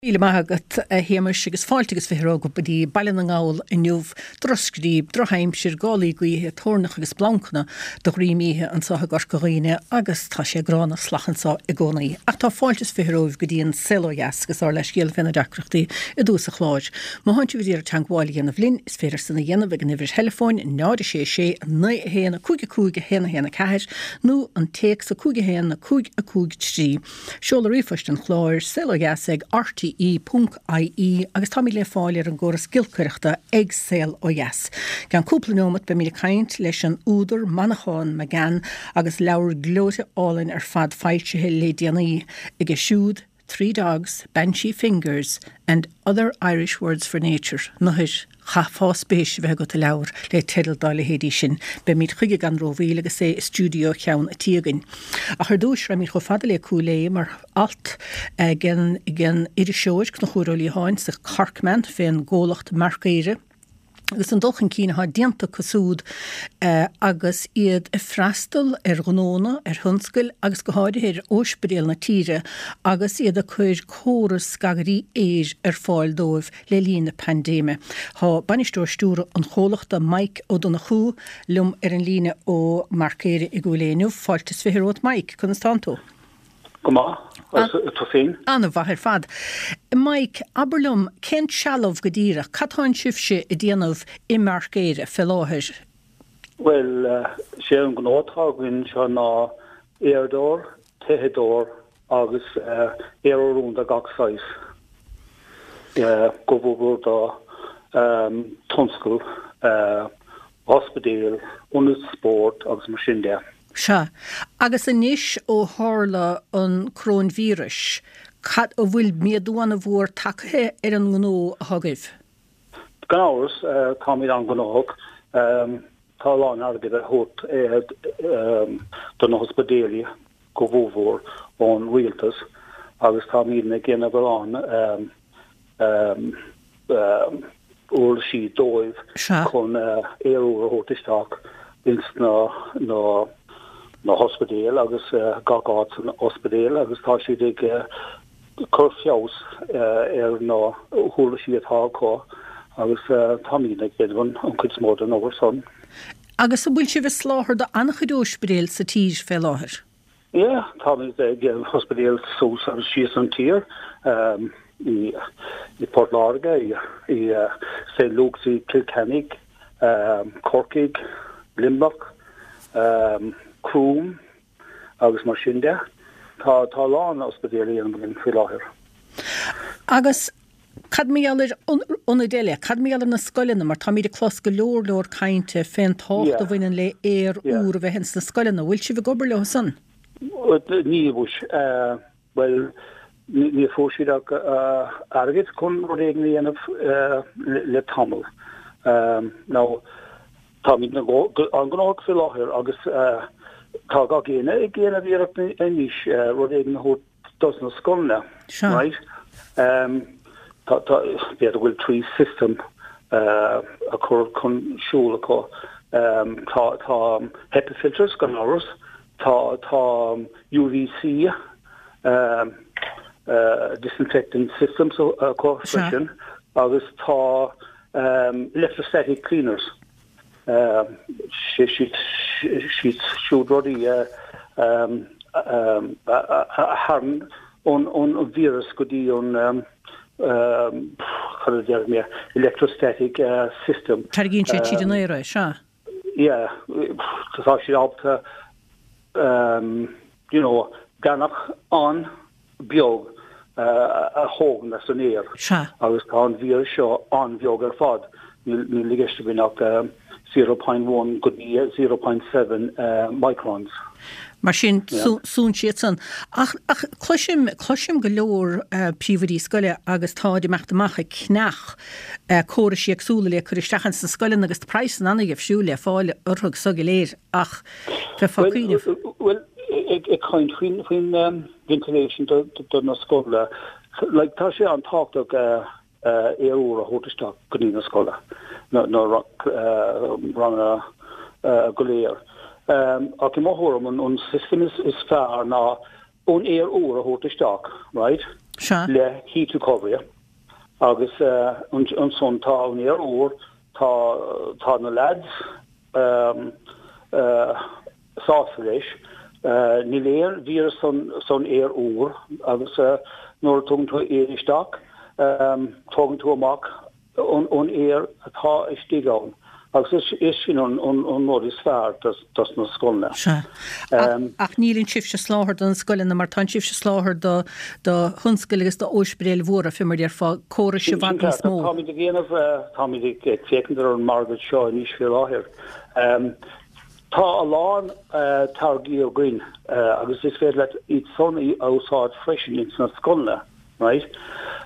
Míle maith agat, a Shéamais, agus fáilte agus 20 romhat go dtí Baile na nGall inniu. Drochscríob, drochaimsir, gálaí gaoithe, toirneach agus splancanna de dhroim oíche anseo i gCorca Dhuibhne agus tá sé gránna salach anseo i gcónaí. Ach tá fáilte is 20 romhaibh go dtí an Saol Ó Dheas agus ár leithscéal fé na deacrachtaí i dtús an chláir. Má thánn sibh ag iarraidh teagmháil a dhéanamh linn, is féidir san a dhéanamh ag an uimhir theileafóin 0 6 6 9 1 5 5 1 1 4 nó an téacs 5 1 5 5 3. Seoladh ríomhphoist an chláir, saolodheas ag rte ponc ie agus táimid le fáil ar an gcóras giolcaireachta ag Saol Ó Dheas. I gceann cúpla neomat beimid ag caint leis an údar Manchán Magan agus leabhar gleoite álainn ar fad foilsithe le déanaí aige siúd, Three Dogs, Banshee Fingers and Other Irish Words for Nature, Nathair. Chaithfeá spéis a bheith agat i leabhar le teideal dá leithéidí sin. Beimid chuige gan rómhoill agus é i stiúideo cheann a' tí againn. Ach ar dtúis, raghaimid chomh fada le Cúil Aodha mar alt ag an iriseoir Conchúr Ó Liatháin sa Corkman fén gcomhlacht Marcaire agus an dul chun cinn atá déanta acu súd agus iad ag freastal ar ghnónna, ar thionscail agus go háirithe ar óispidéil na tíre agus iad ag cur córas scagairí aeir ar fáil dóibh le linn na paindéime. Tá bainisteoir stiúrtha an chomhlachta, Mike Ó Donnchú, liom ar an líne ó Marcaire i gCúil Aodha inniu. Fáilte is 20 romhat Mike, conas tánn tú? Go maith, agus tú féin? An-mhaith ar fad. Mike, abair liom, cén trealamh go díreach, cad tánn sibhse ag déanamh i Marcaire fé láthair? Bhuel, sé an gnó atá againn seo ná aeradóir, téitheadóir agus aer úr de gach saghas, go mhór do tionscal, ospidéil, ionaid spóirt agus mar sin de. Sea. Agus anois ó tharla an coróinvíreas, cad, an bhfuil méadú an-mhór tagtha ar an ngnó atá agaibh? Gan amhras, táimid an-ghnóthach. Tá a lán airgid á thabhairt do na hospidéil go mhórmhór ón rialtas agus táimidne ag déanamh a lán uirlisí dóibh chun aer úr a thabhairt isteach ins na hospidéil agus gach áit san ospidéal agus tá siad ag cur feabhas ar na huirlisí atá acu agus táimidne ag déanamh an chuid is mó den obair san. Agus an bhfuil sibh ag soláthar do an-chuid óispidéil sa tír fé láthair? Yeah, táimid ag ospidéil suas agus síos an tír, i Port Láirge, i St Luke's i Cill Chainnigh, Corcaigh, Luimneach, Croom, agus mar sin de. Tá tá a lán ospidéil á dhéanamh againn faoi láthair. Agus cad mar gheall ar ionaid eile? Cad mar gheall ar na scoileanna? Mar táimid ag clos go leor leor cainte fén tábhacht a bhaineann le aer úr a bheith ins na scoileanna. Bhfuil sibh ag obair leo san? Níl, bhuel, ní fuair siad ach airgead chun rud éigin a dhéanamh le tamall. Now, táimid an-ghnóthach faoi láthair agus tá gach éinne ag déanamh iarracht anois rud éigin a thabhairt dos na scoileanna, right? Tá, b'fhéidir go bhfuil trí system a chur chun siúl acu. Tá, tá HEPA filters gan amhras, Tá tá UVC disinfectant systems acu freisin agus tá electrostatic cleaners. Sé siad siúd rudaí a tharraing an víreas go dtí an cad a déarfaidh mé electrostatic system. Tarraingíonn siad tríd an aer é, sea. yeah, tá siad ábalta you know, deannach an-bheag a thógaint as an aer. Sea. Agus tá an víreas seo an-bheag ar fad. Níl i gceist againn ach 0.1 go dtí 0.7 microns. Mar sin, súnn siad san. Ach, ach cloisim, cloisim go leor príomhoidí scoile agus táid ag imeacht amach ag ceannach córais éagsúla le cur isteach ins na scoileanna agus tá praghsanna an-dhifriúil le fáil orthu so go léir ach bheifeá ag cuimhneamh. Bhuel, ag caint faoin, faoin ventilation do, do na scoileanna, like tá sé an-tábhachtach aer úr a thabhairt isteach go dtí na scoile, na ranganna go léir. Ach i mo thuairim an system is fearr ná an aer úr a thabhairt isteach, right? Sea. Le heat recovery agus ansan tá an aer úr, tá tá na lads sásta leis. Níl aon víreas san aer úr agus nuair a tugann tú aer isteach, tógann tú amach an aer atá istigh ann agus is sin an rud is fearr dos na scoileanna. Sea. Ach níleann sibhse ag soláthar do na scoileanna mar tánn sibhse ag soláthar do do thionscail agus d'ospidéil mhóra, fé mar a déarfá, córais i bhfad níos mó. Táimid ag déanamh, táimid ag féachaint ar an margadh seo anois faoi láthair. Tá a lán táirgí againn agus is féidir leat iad san a úsáid freisin ins na scoileanna, right?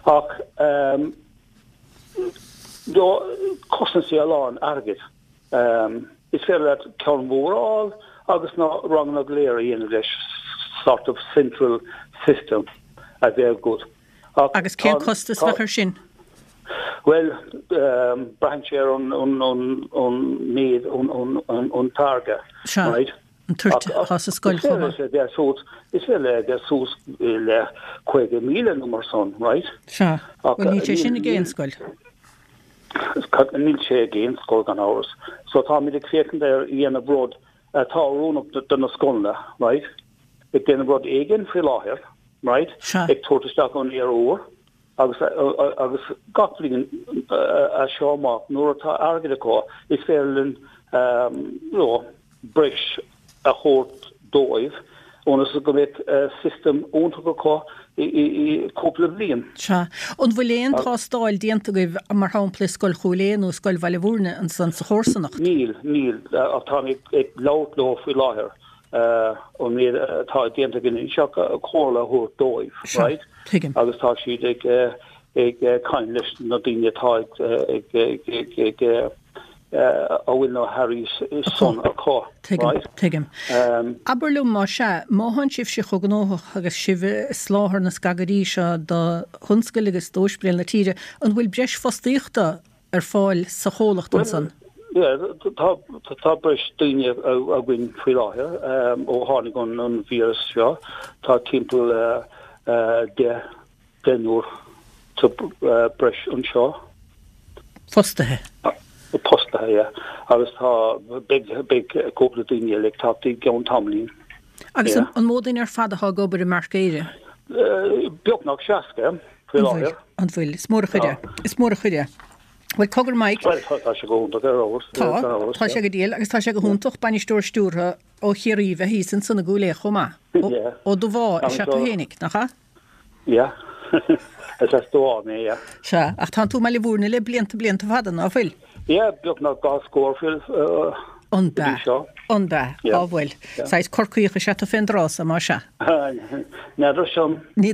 Ach Cosnaíonn sé a lán airgid. Is féidir leat ceann mór a fháil agus na ranganna go léir a dhéanamh leis, sort of central system a bheith agat. Ach Agus cén costas a bheadh air sin? Bhuel, braitheann sé ar an méid an táirge, right? An toirt atá sa scoil chomh maith. Is féidir le bheith suas le 50,000 nó mar san, right? Sea. Bhuel, níl sé sin ag aon scoil. Níl sé ag aon scoil gan amhras. So táimid ag féachaint ar dhéanamh rud atá oiriúnach do na scoileanna, right? Ag déanamh rud éigin faoi láthair, right? Sea. Ag tabhairt isteach an aer úr agus agus gach bliain as seo amach nuair atá airgead acu is féidir linn you know breis a thabhairt dóibh ionas go mbeidh system iontach acu i cúpla bliain. Sea. An bhfuil aon tástáil déanta agaibh, mar shampla i Scoil Chúil Aodha nó i Scoil Bhaile Mhúirne ansan sa chomharsanacht? Níl, níl, ach táim ag labhairt leo faoi láthair an méid atá déanta againn anseo comhairle a thabhairt dóibh, right? Sea, tuigim. Agus tá siad ag ag caint leis na daoine atá ag ag ag ag a bhfuil na hearraí san acu. Tuigim, tuigim. Abair liom, más ea, má thánn sibhse chomh gnóthach agus sibh ag soláthar na scagairí seo do thionscail agus d'ospidéil na tíre, an bhfuil breis fostaíochta ar fáil sa chomhlacht ansan? Bhuel, tá, tá breis daoine againn faoi láthair ó tháinig an víreas seo. Tá timpeall 10 deichniúr sa breis anseo. Fostaithe. Fostaithe, yeah. Agus tá, beidh, beidh cúpla daoine eile ag teacht i gceann tamaillín. Agus an mó duine ar fad atá ag obair i Marc Éire? Beagnach 60 faoi láthair. An bhfuil? Is mór an chuid é. Is mór an chuid é. Bhuel, cogar Mike. Bhuel, tá sé go hiontach ar fheabhas. Tá, tá sé go diail agus tá sé go hiontach bainisteoir stiúrtha ó Chiarraí bheith thíos ansan i gCúil Aodha chomh maith. Ó Dubhá is ea tú fhéinig, nach ea? Yeah. Is as Dubhá mé, yeah. Sea, ach tánn tú i mBaile Mhúirne le blianta, blianta fada, ná fuil? Yeah, beagnach dhá scór go An b'ea? dtí seo. An b'ea? Yeah. Á bhuel. Saghas Corcaíoch is ea tú fén dtráth so, más ea? N'fheadar sin. Ní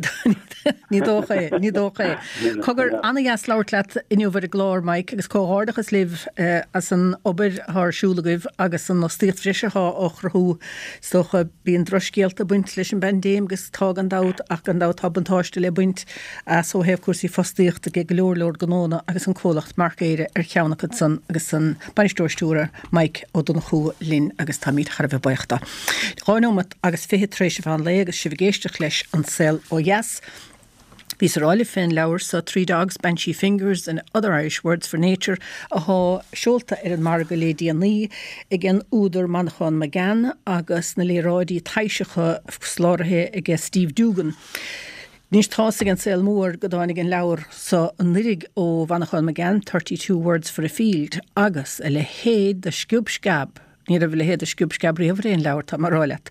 ní dócha é, ní dócha é. Cogar, ana-dheas labhairt leat inniu ar an gclár, Mike, agus comhghairdeachas libh as an obair atá ar siúl agaibh agus an fhostaíocht bhreise atá á chruthú. Is dócha, bíonn drochscéalta ag baint leis an bpaindéim agus tá gan dabht, ach gan dabht tá buntáiste le baint as ó thaobh cúrsaí fostaíochta ag go leor leor gnónna agus an comhlacht Marc Éire ar cheann acu san agus an Bainisteoir Stiúrtha Mike Ó Donnchú linn agus táimid thar a bheith buíoch dó. 2 nóimeat agus 20 tar éis an mheán lae agus sibh ag éisteacht leis An Saol Ó Dheas. Bhíos ag rá libh fén leabhar so Three Dogs, Banshee Fingers and Other Irish Words for Nature athá seolta ar an margadh lé déanaí ag an údar Manchán Magan agus na léaráidí taibhseacha soláthraithe aige Steve Doogan. Anois tá's ag an saol mór go dtáinig an leabhar so anuiridh ó Mhanchán Magan, 32 Words for a Field, agus a leithéid de sciob sceab Ní raibh a leithéid de sciob sceab riamh ar aon leabhar, tá mé a rá leat.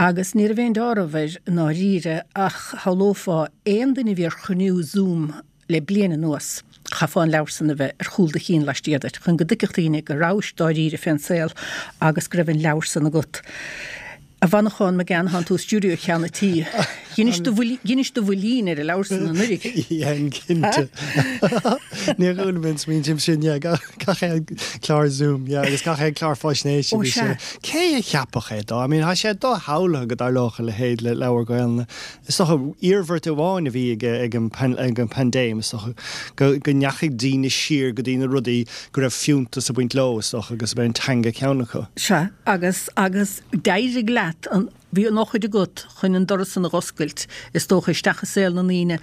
Agus ní raibh aon deáramh air i ndáiríre ach shamhlófá aon duine a bhí ar chruinniú Zoom le bliain anuas, chaithfeá an leabhar san a bheith ar chúl do chinn laistiar duit chun go dtuigfeadh daoine go rabhais dáiríre fén saol agus go raibh an leabhar san agat. A Mhanchán Magan, thánn tú i stiúideo Cheann a' Tí. Dheinis do dheinis do bhuilín ar an leabhar san anuiridh. Dhein, cinnte. Níor chuala mé an smaointe sin, yeah, gach aon chlár Zoom, yeah, agus gach aon chlár faisnéise Ó, bhí sé. sea. Cé a cheapfadh é dó? I mean, tá sé doshamhlaithe go dtarlódh a leithéid le leabhar Gaelainne. Is dócha, iarmhairt amháin a bhí ag ag an ag an bpaindéim, is dócha, go go ndeachaigh daoine siar go dtí na rudaí go raibh fiúntas ag baint leo, is dócha, agus ab é an teanga ceann acu. Sea, agus, agus d'éirigh leat an. Bhí an eochair agat chun an doras san a dh'oscailt, is dócha, isteach i saol na ndaoine.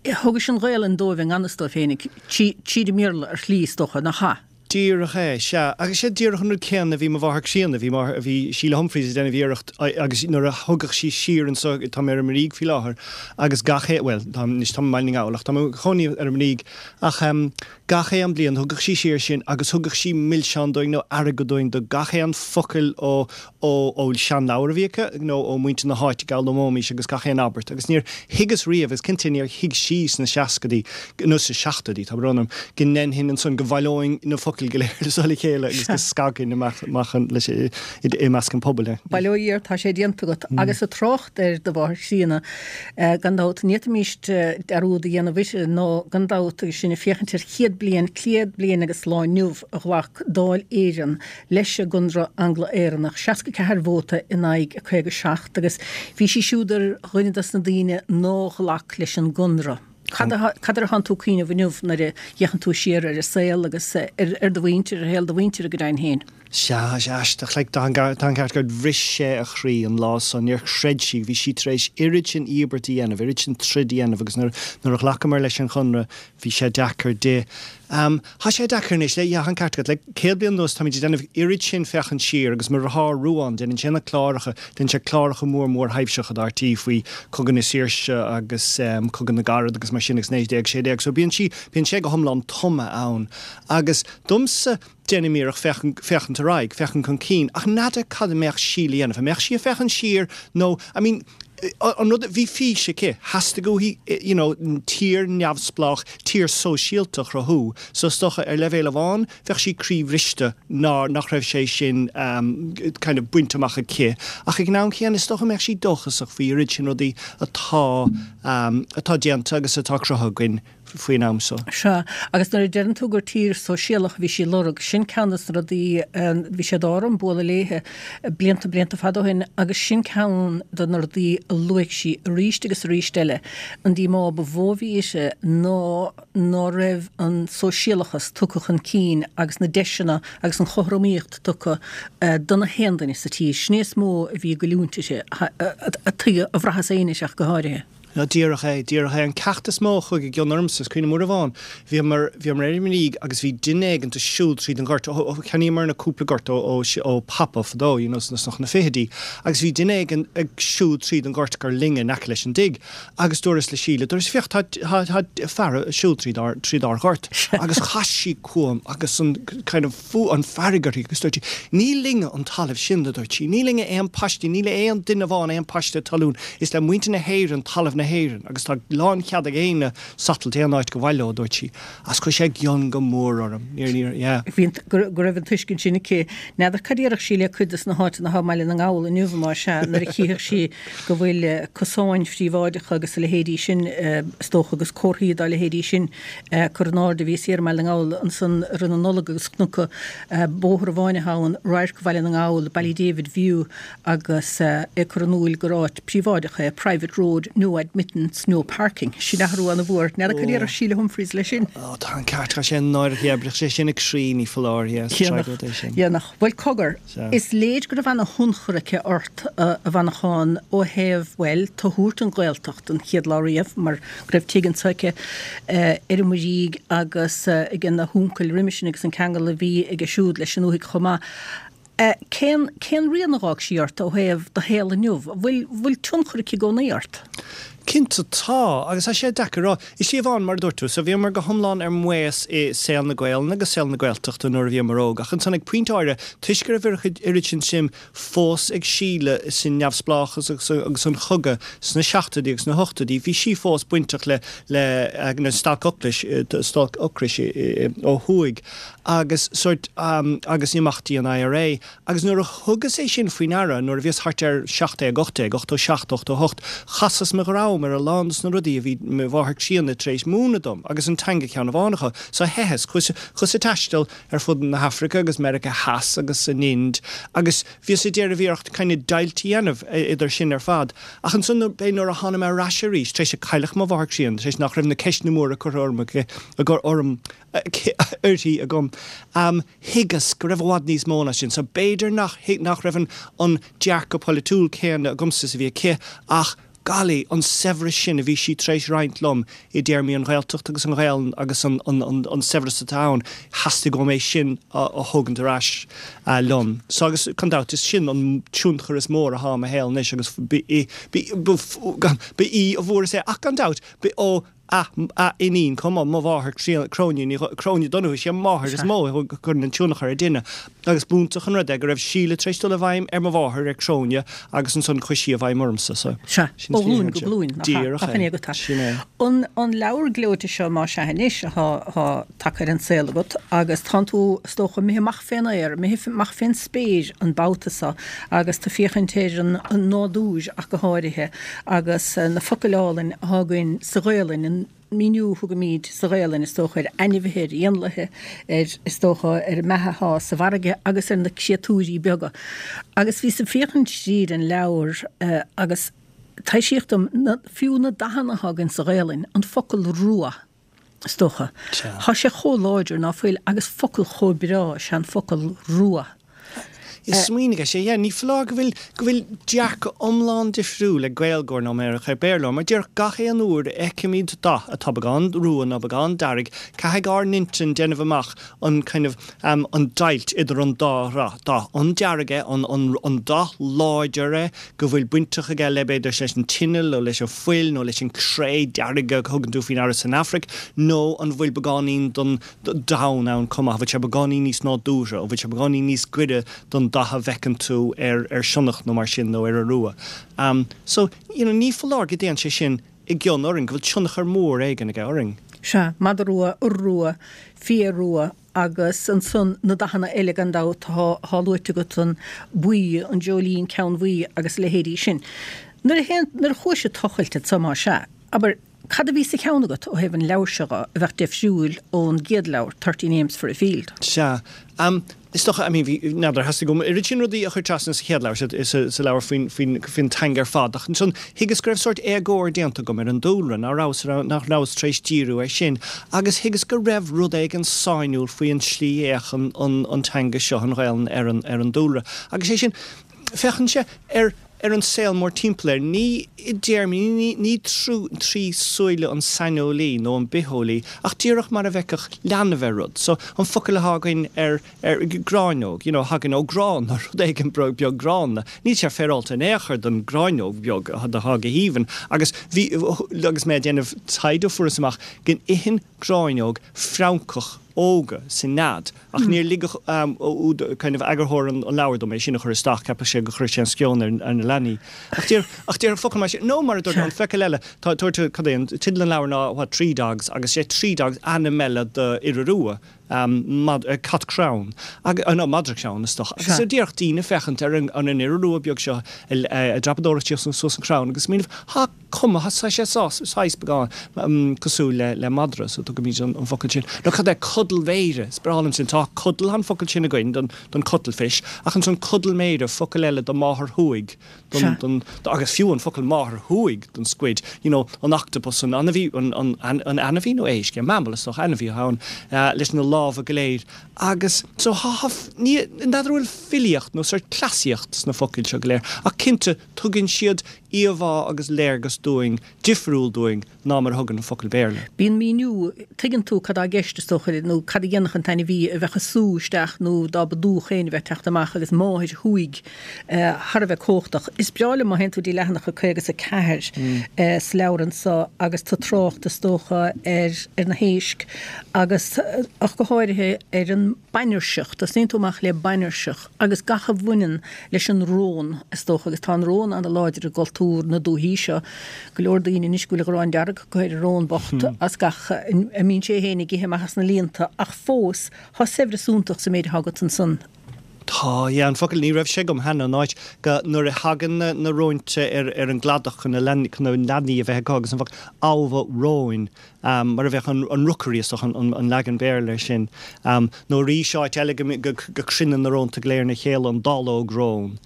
Thugais an Ghaelainn dóibh i ngan fhios dóibh féinig, tríd an mBéarla ar shlí, is dócha, nach ea? Díreach é, sea. Agus sé díreach an rud céanna a bhí mo mháthair chríonna, bhí máthair, bhí Síle Humphreys ag déanamh iarracht agus nuair a thugadh sí siar anso, tá mé ar an mBuirígh faoi láthair, agus gach aon, bhuel, tá, anois táim i mBaile na nGall ach tá mé i mo chónaí ar an mBuirígh, ach em, gach aon bliain thugadh sí siar sinn agus thugadh sí milseán dúinn nó airgead dúinn do gach aon focal ó, ó ó seanleabhar a bhí aici nó ó mhuintir na háite a d'fhoghlaimeoimís agus gach aon abairt agus níor thuigeas riamh agus cinnte níor thuig sí sna seascaidí nó sna seachtóidí, tá brón orm, go ndéanfainn ansan, go bhaileoinn na focail go léir so le chéile agus go scagfainn amach amach an leis i i measc an phobail é. Bail ó Dhia ort, tá sé déanta agat. Agus ag trácht ar do mháthair chríonna, gan dabht, ní fhéadfaimíst dearúd a dhéanamh uirthi nó gan dabht agus sinn ag féachaint ar chéad bliain, céad bliain agus lá inniu a ghlac Dáil Éireann leis an gConradh Angla-Éireannach, 64 vóta in aghaidh 57, agus bhí sí siúd ar dhuine dos na daoine nár ghlac leis an gConradh. Cad cad air atánn tú ag cuimhneamh inniu nuair a fhéachann tú siar ar an saol agus ar do mhuintir, ar shaol do mhuintire go deimhin féin? Sea, sea, aisteach, like, tá an ceart agat, bhris sé a chroí an lá san, níor chreid sí, bhí sí tar éis oiread sin íobairt a dhéanamh, oiread sin troid a dhéanamh agus nuair nuair a ghlacamar leis an Chonradh, bhí sé deacair di. Am, Tá sé deacair anois, le, yeah, tá an ceart agat, le 100 bliain anuas táimid ag déanamh oiread sin féachaint siar agus mo dheartháir Ruán, déanann sé na cláracha, déanann sé cláracha mór mórthaibhseacha do RTÉ faoi Cogadh na Saoirse agus Cogadh na gCarad agus mar sin agus 1916 so bíonn sí, bíonn sé go hiomlán tumtha ann agus domsa, déanaim iarracht féachaint, féachaint ar aghaidh, féachaint chun cinn ach n'fheadar cad a mbeadh sí le dhéanamh, an mbeadh sí ag féachaint siar nó, I mean, an rud, bhí fís aici, theastaigh uaithi, you know, tír neamhspleách, tír sóisialta a chruthú, so is dócha ar leibhéal amháin bheadh sí croíbhriste nár, nach raibh sé sin kind of bainte amach aici, ach ag an am céanna is dócha go mbeadh sí dóchasach faoi oiread sin rudaí atá, atá déanta agus atá cruthaithe againn. faoin am so. Sea, agus nuair a deireann tú gur tír sóisialach a bhí sí ag lorg, sin ceann des na rudaí, bhí sé d'ádh orm bualadh léithe blianta, blianta fada ó shin agus sin ceann de na rudaí a luaigh sí arís agus arís eile, an díomá ba mhó a bhí uirthi ná ná raibh an sóisialachas tugtha chun cinn agus na deiseanna agus an chothromaíocht tugtha do na haon duine sa tír. Sin é is mó a bhí ag goilliúint uirthi, a tuigeadh, a bhraitheas féin ach go háirithe. Ná díreach é, díreach é. An ceacht is mó a chuaigh i gcion ormsa, is cuimhin liom uair amháin, bhíomar, bhíomar ar an mBuirígh agus bhí duine éigint ag siúl tríd an ghort, ó, ó, cheannaíomar na cúpla gort ó, ó, ó Papa fadó, you know, sna, sna fichidí, agus bhí duine éigin ag siúl tríd an ghort gur linne in aice leis an dtigh agus dúras le Síle, dúras, féach, tá, tá, tá fear ag siúl tríd ár, tríd ár ghort agus chas sí chugam agus an kind of, fuath, an fearg uirthi agus dúirt sí, Ní linne an talamh sin, a dúirt sí, ní linne aon paiste, níl aon duine amháin aon paiste talún, is le muintir na hÉireann talamh na hÉireann agus tá lánchead ag éinne satailt aon áit gur mhaith leo, a dúirt sí. Agus chuir sé i gcion go mór orm. Níor, níor, yeah. Bhí an, go, go raibh an tuiscint sin aici. N'fheadar cad a déarfadh sí le cuid des na háiteanna atá i mBaile na nGall inniu, más ea, nuair a chífeadh sí go bhfuil cosáin phríobháideacha agus a leithéidí sin, is dócha, agus comharthaí dá leithéidí sin curtha in airde. Bhíos thiar i mBaile na nGall ansan i rith na Nollag agus chonac bóthar amháin atá ann, Radharc Bhaile na nGall, Ballydavid View, agus é ag cur in iúil gur áit príobháideach é, private road, no admittance, no parking. Sin athrú ana-mhór. N'fheadar cad a déarfadh Síle Humphreys leis sin? Ó, tá an ceart, tá sé náireach, yeah, bhrisfeadh sé sin a croí, ní foláir, yeah, is tragóid é sin. Dhéanfadh. Bhuel, cogar, is léir go raibh ana-thionchar aici ort, a Mhanacháin, ó thaobh, bhuel, tú a thabhairt don Ghaeltacht an chéad lá riamh, mar go raibh tigh anso aici ar an mBuirígh agus ag na huncail roimhe sin agus an ceangal a bhí aige siúd leis an ndúthaigh chomh maith. Cén, cén rian a dh'fhág sí ort ó thaobh do shaol inniu? An bhfuil, bhfuil tionchar aici i gcónaí ort? Cinnte tá, agus tá sé deacair a rá. I slí amháin, mar a dúirt tú, so bhíomar go hiomlán ar maos i saol na Gaelainne agus saol na Gaeltachta nuair a bhíomar óg, ach ansan ag pointe áirithe, toisc go raibh oiread sin suim fós ag Síle sa neamhspleáchas agus agus an chogadh sna seachtóidí agus na hochtóidí, bhí sí fós bainteach le le na stailc ocrais, stailc ocrais ó thuaidh agus sórt agus imeachtaí an IRA. Agus nuair a thugas é sin faoi ndeara, nuair a bhíos thart ar 17, 18, 87, 88, chasas mo dhrom ar a lán dos na rudaí a bhí mo mháthair chríonna tar éis múineadh dom, agus an teanga ceann amháin acu. So theitheas, chuas, chuas ag taisteal ar fud na hAfraice agus Meiriceá Theas agus an Ind agus bhíos ag déanamh iarracht kind of deighilt a dhéanamh idir sin ar fad. Ach ansan b'é nuair a thána mé ar ais arís, tar éis a cailleadh mo mháthair chríonna, tar éis nach raibh na ceisteanna móra curtha orm aici, orm. uirthi agam. Thuigeas go raibh i bhfad níos mó ná sin. So b'fhéidir nach nach raibh an an dearcadh polaitiúil céanna agamsa is a bhí aici ach golly, an saibhreas sin a bhí sí tar éis roinnt liom i dtéarmaí an Ghaeltacht agus an Ghaelainn agus an an an an saibhreas atá ann, theastaigh uaim é sin a a thógaint ar ais liom. So agus gan dabht is sin an tionchar is mór athá i mo shaol anois agus ba í ba í a bhfuaireas é ach gan dabht ba ó a a iníon chomh maith, mo mháthair Cróine Ní Cróine Donoghue, is í an mháthair is mó a chuireann an tionchar ar duine agus b'iontach an rud é go raibh Síle tar éis dul i bhfeidhm ar mo mháthair, ar Cróine, agus ansan chuaigh sí i bhfeidhm ormsa. So, Sea, ó ghlúin go glúin, nach ea? Nach in é agat é? Sin é. An an leabhar gleoite seo, más ea anois, atá atá tagtha ar an saol agat agus tánn tú, is dócha, imithe amach fén aer, imithe amach fén spéir an babhta so agus tú féachaint ar an nádúr ach go háirithe agus na focail álainn athá againn sa Ghaelainn, an míniú a thugaimíd sa Ghaelainn, is dócha, ar ainmhithe, ar éanlaithe, ar, is dócha, ar an mbeatha athá sa bhfarraige agus ar na créatúirí beaga. Agus bhíos ag féachaint tríd an leabhar agus taibhsíodh dom, fiú na dathanna athá againn sa Ghaelainn, an focal rua, is dócha. Thá sé chomh láidir ná fuil agus focal chomh breá is ea an focal rua. Smaoinigh air, yeah, ní foláir go bhfuil, go bhfuil dearcadh iomlán difriúil ag Gaeilgeoir ná mar a bheadh ag Béarlóir, mar díreach gach aon uair a fheicimid dath atá beagán rua nó beagán dearg, caithfidh ár n-intinn déanamh amach an kind of, an deighilt idir an dá dhath, an dearg é, an, an, an dath láidir é, go bhfuil bainteach aige le, b'fhéidir, leis an tine nó leis an fuil nó leis an cré dearg a thugann tú faoi ndeara san Afraic, nó an bhfuil beagáinín don donn ann chomh maith, an bhfuil sé beagáinín níos nádúrtha, an bhfuil sé beagáinín níos gaire don dath a bhfeiceann tú ar ar sionnach nó mar sin nó ar iorua. So, you know, ní foláir go dtéann sé sin i gcion orainn, go bhfuil tionchar mór éigin aige orainn. Sea, madra rua, iorua, fia rua, Agus ansan na dathanna eile gan dabht atá luaite agat, an buí, an dreoilín ceannbhuí agus a leithéidí sin. Nuair a théann, nuair a chuais ag tochailt anso más ea, abair, cad a bhí sa cheann agat ó thaobh an leabhair seo dho a bheadh deifriúil ón gcéad leabhar, Thirty Names for a Field? Sea. Is dócha, I mean, bhí, n'fheadar, theastaigh uaim oiread sin rudaí a chur trasna sa chéad leabhar, sa, sa leabhar faoin, faoin, faoin teanga ar fad, ach ansan thuigeas go raibh sórt éagóir déanta agam ar an dúlra, nach rabhas, nach rabhas tar éis díriú air sin, agus thuigeas go raibh rud éigin sainiúil faoi an tslí a fhéachann an, an teanga seo, an Ghaelainn, ar an, ar an dúlra. Agus é sin, féachann sé ar, ar an saol mórtimpeall air, ní i dtéarmaí, ní, ní trí súile an saineolaí nó an bitheolaí, ach díreach mar a bhfeicfeadh leanbh ar rud. So, an focal atá againn ar, ar gráinneog, you know, thagann ó grán, nó rud éigin beag gránna. Níl sé féaráilte in aon chor don ghráinneog bheag atá go haoibhinn. Agus bhí, agus mé ag déanamh taighde fuaireas amach go n-itheann gráinneog francach óga sa nead. Ach níor lig kind of eagarthóir an leabhair dom é sin a chur isteach, cheapfadh sé go chuirfeadh sé an sceon ar na leanaí. Ach deir, ach deir focal mar sin, nó mar a dúirt an focal eile, tá, dúirt, cad é an teideal an leabhair ná, what, Tree Dogs, agus sé Tree Dogs ainm eile do iora rua, mad, cat crann, ag, no, madra crann is dócha. Agus díreach daoine féachaint ar an, an iora rua beag seo ag dreapadóireacht síos suas an crann agus smaoineamh, ha, cuma, tá sé saghas beagán cosúil le madra, so tugaimid an focal sin. Nó cad é codal mhéire? Is breá liom sin. Tá codal, an focal sin againn don don cuttlefish, ach ansan codal méire, focal eile do máthair shúigh, don don agus fiú an focal máthair shúigh don squid, you know, an octopus, an ainmhí, an an an ainmhí nó éisc, mammal is dócha, ainmhí atá ann, leis na lámha go léir. Agus so tá, tá, ní, n'fheadar an bhfuil filíocht nó sórt cleasaíocht sna focail seo go léir, ach cinnte, Tugann siad íomhá agus léargas dúinn, difriúil dúinn ná mar a thugann an focal Béarla. Bíonn míniú, tuigeann tú cad tá i gceist, is dócha, nó cad a dhéanfadh an t-ainmhí a bheadh ag sú isteach nó dá mba dúch féin a bheith ag teacht amach agus máthair shúigh thar a bheith cumhachtach. Is breá liom má théann tú dtí leathanach a 54 sa leabhar anso agus tú ag trácht, is dócha, ar ar na héisc agus ach go háirithe ar an bainirseach. Tosnaíonn tú amach le bainirseach agus gach a bhaineann leis an rón, is dócha, agus tá an rón ana-láidir i gcultúr na dúichí seo. Go leor daoine anois go bhfuil an ghráin dearg acu ar an rón bocht as gach a mbíonn sé féin ag ithe amach as na líonta, ach fós, tá saibhreas iontach sa méid atá agat ansan. Tá, yeah, an focal, ní raibh sé agam cheana, an áit go, nuair a thagann na, na róinte ar, ar an gcladach chun na leanaí, chun na leanaí a bheith acu agus an focal abha róin, mar a bheadh an, an rookery is dócha an, an, an leagan Béarla air sin. Nó arís áit eile go, go, go cruinneann na rónta go léir ina chéile, an dallóg rón.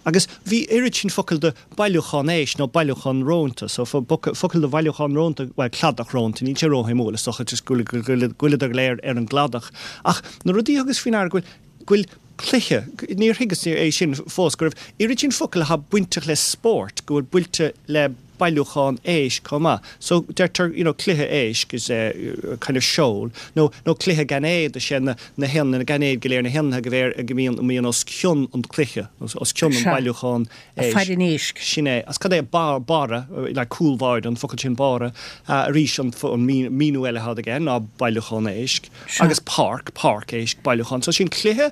Agus bhí oiread sin focal do bailiúchán éisc nó bailiúchán rónta, so focal do bhailiúchán rónta, bhuel cladach rónta, níl sé róshuimiúil is dócha, just go bhfuileadar go léir ar an gcladach. Ach na rudaí a thugas faoi ndeara go bhfuil, go bhfuil cluiche, níor thuigeas é sin fós, go raibh oiread sin focal atá bainteach le spórt, go bhfuil bainte le bailiúchán éisc chomh maith. So deirtear you know cluiche éisc is a kind of shoal nó nó cluiche gainéad is é na na héan na gainéid go léir na héanlaithe go léir go mbíonn a mbíonn os cionn an cluiche os cionn an Sea. bailiúchán éisc. Faire an éisc. Sin é. Agus cad é barr barra like cúlbháire an focal sin barra arís an an míniú eile atá aige ná bailiúchán éisc Sea. agus páirc páirc éisc bailiúchán. So sin cluiche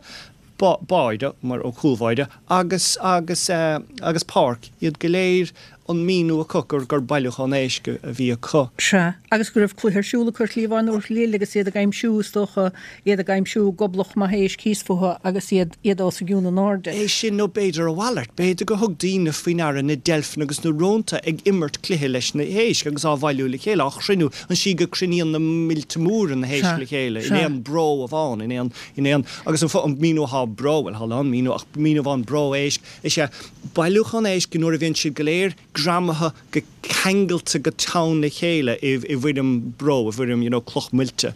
báire, mar ó cúlbháire, agus, agus, agus páirc, iad go léir an míniú acu gur, gur bailiúchán éisc a bhí acu. Sea, agus go raibh cluiche ar siúl acu ar chliabhán Iúr Chlill agus iad ag aimsiú, is dócha, iad ag aimsiú goblach maith éisc thíos fúthu agus iad, iad os a gcionn in airde. É sin nó b'fhéidir a mhalairt, b'fhéidir gur thug daoine faoi ndeara na deilfeanna agus na rónta ag imirt cluiche leis na héisc agus á bhailiú le chéile, á chruinniú, an tslí go cruinníonn na mílte móra na héisc Sea, le chéile in sea. aon bró amháin, in aon. In aon, agus an an míniú atá bró, bhuel, tá a lán míniú, ach míniú amháin bró éisc, is ea bailiúchán éisc nuair a bhíonn siad go léir greamaithe go ceangailte go teann le chéile i i bhfoirm bró, i bhfoirm, you know, cloch muilte.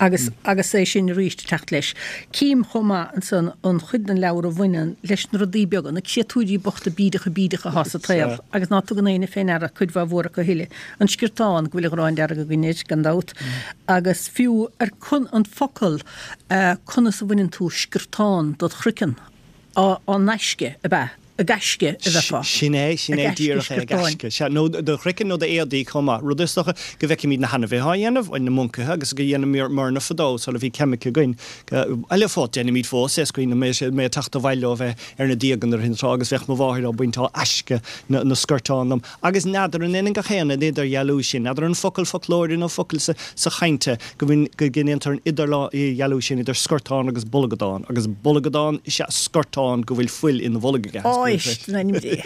Agus, agus é sin arís ag teacht leis. Cím chomh maith ansan an chuid den leabhar a bhaineann leis na rudaí beaga, na créatúirí bochta bídeacha bídeacha atá sa tsaol agus ná tugann éinne fé ndeara cuid mhaith mhór acu a thuilleadh. An sciortán, go bhfuil an ghráin dearg againn air, gan dabht, agus fiú ar an focal conas a bhaineann tú sciortán dod chraiceann, á n-aisce, ab ea? Ag aisce a bheifeá. Sin é, sin é Ag aisce díreach é, ag sciortáin. aisce. Sea, nó do chraiceann nó d'éadaí chomh maith. Rud is dócha go bhfeicimid na hainmhithe á dhéanamh, bhuel, na moncaithe, agus go dhéanamar-na fadó sula bhí ceimice againn. Eile fós, déanaimid fós é, is cuimhin liom mé ag teacht abhaile ó bheith ar na díoga nuair a tráth agus bheadh mo mháthair á baint á aisce na sciortán liom. Agus n'fheadar an ionann gach aon an idirdhealú sin, n'fheadar an focal foclóire nó focal sa chaint é, go ndéantar an idirdhealú sin idir scortán agus bolgadán, agus bolgadán is ea scortán go bhfuil fuil ina bholg aige. Éist, in ainm Dé.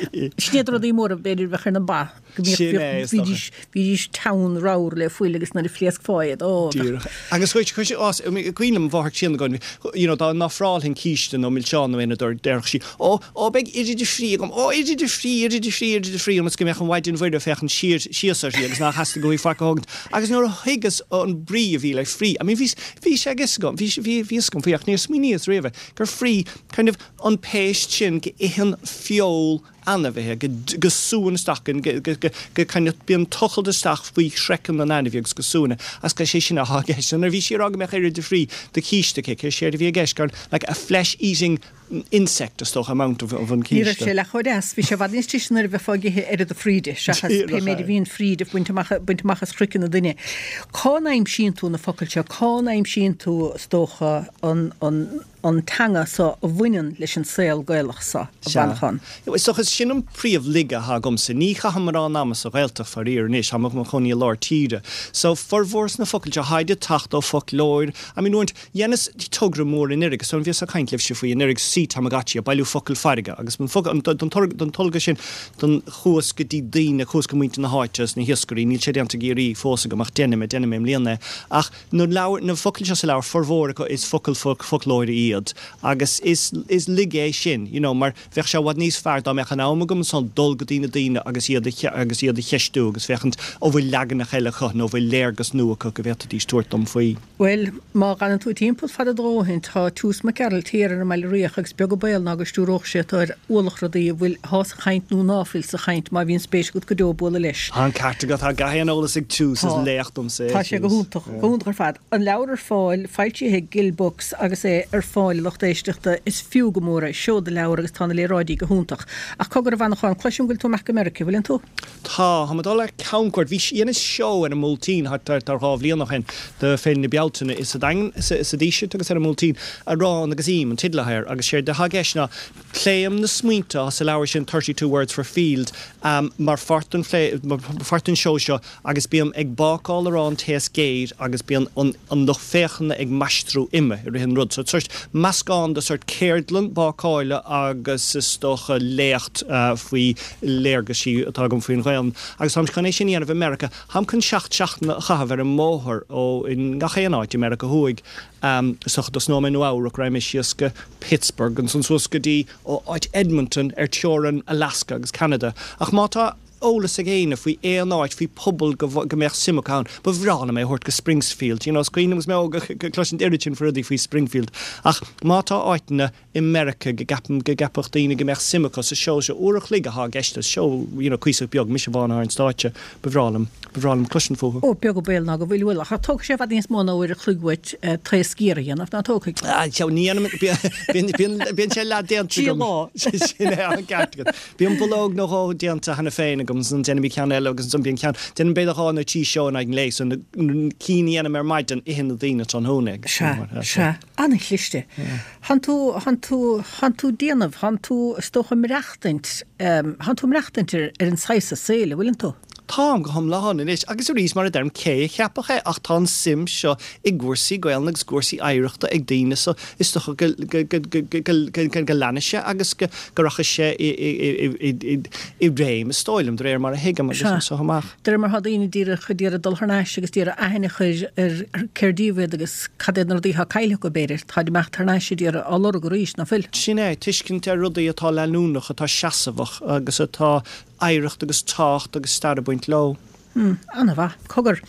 Sin iad rudaí móra b'fhéidir a bheadh ar na ba, go Sin é, is dócha. mbíodh, bhídís teann ramhar le fuil agus nuair a phléascfá iad, ó, bheadh. Díreach. Agus chuir, chuir sé, á, cuimhin liom mo mháthair críonna againn, you know, dá n-ofrálfainn císte nó milseán nó aon rud déarfadh sí, Ó, ó, beidh oiread de phrí agam, ó, oiread de phrí, oiread de phrí, oiread de phrí, ionas go mbeadh an Mhaighdean Mhuire ag féachaint siar, síos uirthi agus nár theastaigh uaithi faic a thógaint. Agus nuair a thuigeas an brí a bhí le phrí, I mean, bhí, bhí sé ag fhios agam, bhí, bhí, bhí fhios agam faoi ach níor smaoiníos riamh gur phrí, kind of, an péist sin go itheann feoil ainmhithe, go, go súann isteach, go, go, go, go kind of, bíonn tochailt isteach faoi chraiceann an ainmhí agus go súann é. Agus gur sé sin atá i gceist. So nuair a bhí sí ag rá go mbeadh oiread de phrí de chíste aici, séard a bhí i gceist gur like a flesh-eating insect, is dócha, amount of an Ní raibh císte. sé leath chomh deas. Bhí sé i bhfad níos deise nuair a bheifeá ag ithe oiread de phrí di, seachas pé Díreach méid a é. bhíonn fríd ag baint amach, baint amach as chraiceann an duine. Cá n-aimsíonn tú na focail seo? Cá n-aimsíonn tú, is dócha, an, an, an teanga so a bhaineann leis an saol Gaelach so, a Sea. Mhanchán? Is dócha, sin an príomh laige atá agamsa. Ní chaithim mórán ama sa Ghaeltacht, faraor, anois. Táim i mo chónaí i lár tíre. So, formhór na focail seo, tháid ag teacht ó foclóir. I mean, uaireanta, Dheineas togra mór anuraidh, is dóigh liom bhíos ag caint libhse faoi anuraidh, Sea Tamagotchi, ag bailiú focal farraige, agus don focal, don togra, don tolga sin, don, chuas go dtí daoine, chuas go muintir na háite agus na hiascairí, níl sé déanta i gCiarraí fós agam ach déanfaidh mé, déanfaidh mé i mbliana é. Ach na leabhair, na focail seo sa leabhar, formhór acu is focail foclóire iad agus is, is laige é sin, you know, mar bheadh sé i bhfad níos fearr dá mbeadh an am agam ansan dul go dtí na daoine agus iad a, agus iad a cheistiú agus féachaint an bhfuil leaganacha eile acu nó an bhfuil léargas nua acu go bhféadfaidís tabhairt dom faoi. Bhuel, má dh'fhanann tú timpeall fada do dhóthain, tá Toose Mac Gearailt thiar ar an mBaile Riach agus beag an baol ná go stiúródh sé tú ar ualach rudaí a bhfuil, athá sa chaint nó ná fuil sa chaint, má bhíonn spéis agat go deo bualadh leis. Tá an ceart agat, tá gach aon eolas ag Toose, is Tá. laoch domsa é Tá sé go Toose. hiontach, go hiontach ar fad. An leabhar ar fáil, foilsithe ag Gill Books agus é ar fáil a lucht éisteachta, is fiú go mór é, seoda leabhar agus tá na léaráidí go hiontach. Ach. Cogar a Mhanacháin, cloisim go bhfuil tú amach go Meiriceá, bhfuileann tú? Tá, táim ag dul ar camchuairt. Bhí, dheineas seó ar an mBuailtín thart ar dhá bhliain ó shin do Féile na Bealtaine i sa Daingean, sa Díseart agus ar an mBuailtín, Arán agus Im an teideal atá air agus séard atá i gceist ná pléim na smaointe atá sa leabhar sin 32 Words for Field mar pháirt den phlé, mar pháirt den seó seo agus bím ag bácáil arán taos géar agus bíonn an an lucht féachana ag maistriú uime i rith an rud. So sórt meascán de sórt ceardlann bácála agus is dócha léacht faoi léargaisí atá agam faoin Ghaelainn. Agus táim chun é sin a dhéanamh i Meiriceá. Táim chun seacht seachtaine a chaitheamh ar an mbóthar ó i ngach aon áit i Meiriceá Thuaidh. Is dócha tosnóidh mé i Nua Eabhrac, raghaidh mé síos go Pittsburgh, ansan suas go dtí áit Edmonton ar teorainn Alaska agus Ceanada. Ach má tá eolas ag éinne faoi aon áit, faoi pobal go go mbeadh suim acu ann, ba bhreá liom é a thabhairt go Springsfield. You know, is cuimhin liom agus mé óg ag cloisint oiread sin faoi rudaí faoi Springfield. Ach má tá áiteanna i Meiriceá go gceapaim go gceapfadh daoine go mbeadh suim acu sa seó seo, uair a chloig athá i gceist, is seó, you know, cuíosach beag, mise amháin athá ar an stáitse, ba bhreá liom, ba bhreá liom cloisint fúthu. Ó, beag an baol ná go bhfuil, bhuel, ach tógfaidh sé i bhfad níos mó ná uair a chloig uait taos géar a dhéanamh, ná tógfaidh? Ah, ní dhéanaim, bíonn, bíonn, bíonn sé leath déanta agam. Trí lá. Sin é, an ceart agat. Bíonn bulóg nó dhó déanta cheana féin agam, ansan déanaim ceann eile agus ansan bíonn ceann, déanaim b'fhéidir dhá nó trí seó in aghaidh an lae, so na cinn a dhéanaim ar maidin, itheann na daoine tráthnóna agus sin mar, Sea, sea, an-chliste. Thánn tú, thánn tú, thánn tú déanamh, thánn tú is dócha maireachtaint, thánn tú maireachtaint ar, ar an saghas saoil, a bhfuileann tú? Táim go hiomlán anois, agus arís, mar a deirim, cé a cheapfadh é, ach tá an suim seo i gcúrsaí Gaelainne agus cúrsaí oidhreachta ag daoine so is dócha go go leanfaidh sé agus go rachaidh sé i réim, is dóigh liom, de réir mar a thuigim agus anso amach. De réir mar atá daoine díreach ag iarraidh dul thar n-ais agus d'iarraidh aithne a chur ar cér díobh iad agus cad iad na rudaí atá caillte acu, b'fhéidir, táid imeacht thar n-ais ag iarraidh á lorg arís, ná fuil? Sin é, tuiscint ar rudaí atá leanúnach, atá seasmhach agus atá oidhreacht agus tábhacht agus stair ag baint leo. Hmm, an-mhaith. Cogar,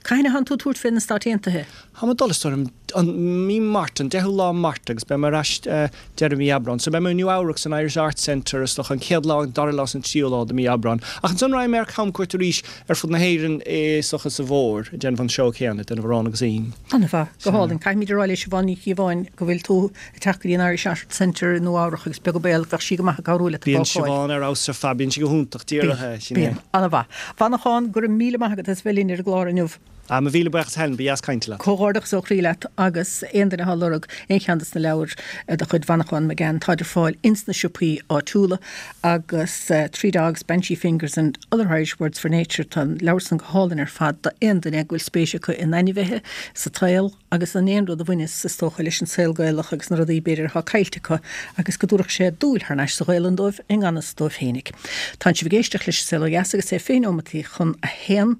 cathain a thánn tú ag tabhairt fé na Stáit Aontaithe? Táim ag dul, is dóigh liom, an mí Márta, an 10ú lá Márta agus beidh mé ar ais deireadh mí Aibreáin. So beidh mé i Nua Eabhrac san Irish Arts Centre is dócha an chéad lá, an dara lá is an tríú lá de mí Aibreáin. Ach ansan raghaidh mé ar camchuairt arís ar fud na hÉireann is dócha sa bhfómhar, ag déanamh an seó céanna, ag déanamh Arán agus Im. An-mhaith. Go hálainn. Caithfimid a rá le Siobhán Ní Chíobháin go bhfuil tú ag teacht go dtí an Irish Arts Centre i Nua Eabhrach agus beag an baol bheadh sí go maith ag cabhrú leat an Bíonn bácáil. Siobhán ar fheabhas ar fad, bíonn sí go hiontach, díreach é, sin é. Bíonn. An-mhaith. Mhanachán, go raibh míle maith agat as bheith linn ar an gclár inniu. Ah, mo mhíle buíochas Helen, ba dheas caint leat. Comhghairdeachas ó chroí leat agus aon duine atá ag lorg aon cheann des na leabhair de chuid Mhanachán McGann, táid ar fáil ins na siopaí áitiúla agus Three Dogs, Banshee Fingers and Other Irish Words for Nature, tá an leabhar san go hálainn ar fad d'aon duine go bhfuil spéis acu in ainmhithe, sa tsaol. agus in aon rud a bhaineas, is dócha, leis an saol Gaelach agus na rudaí, b'fhéidir, atá caillte acu agus go dtabharfadh sé dúil thar n-ais sa Ghaelainn dóibh i ngan fhios dóibh féinig. Tánn sibh ag éisteacht leis An Saol Ó Dheas agus é 20 neomataí chun a haon.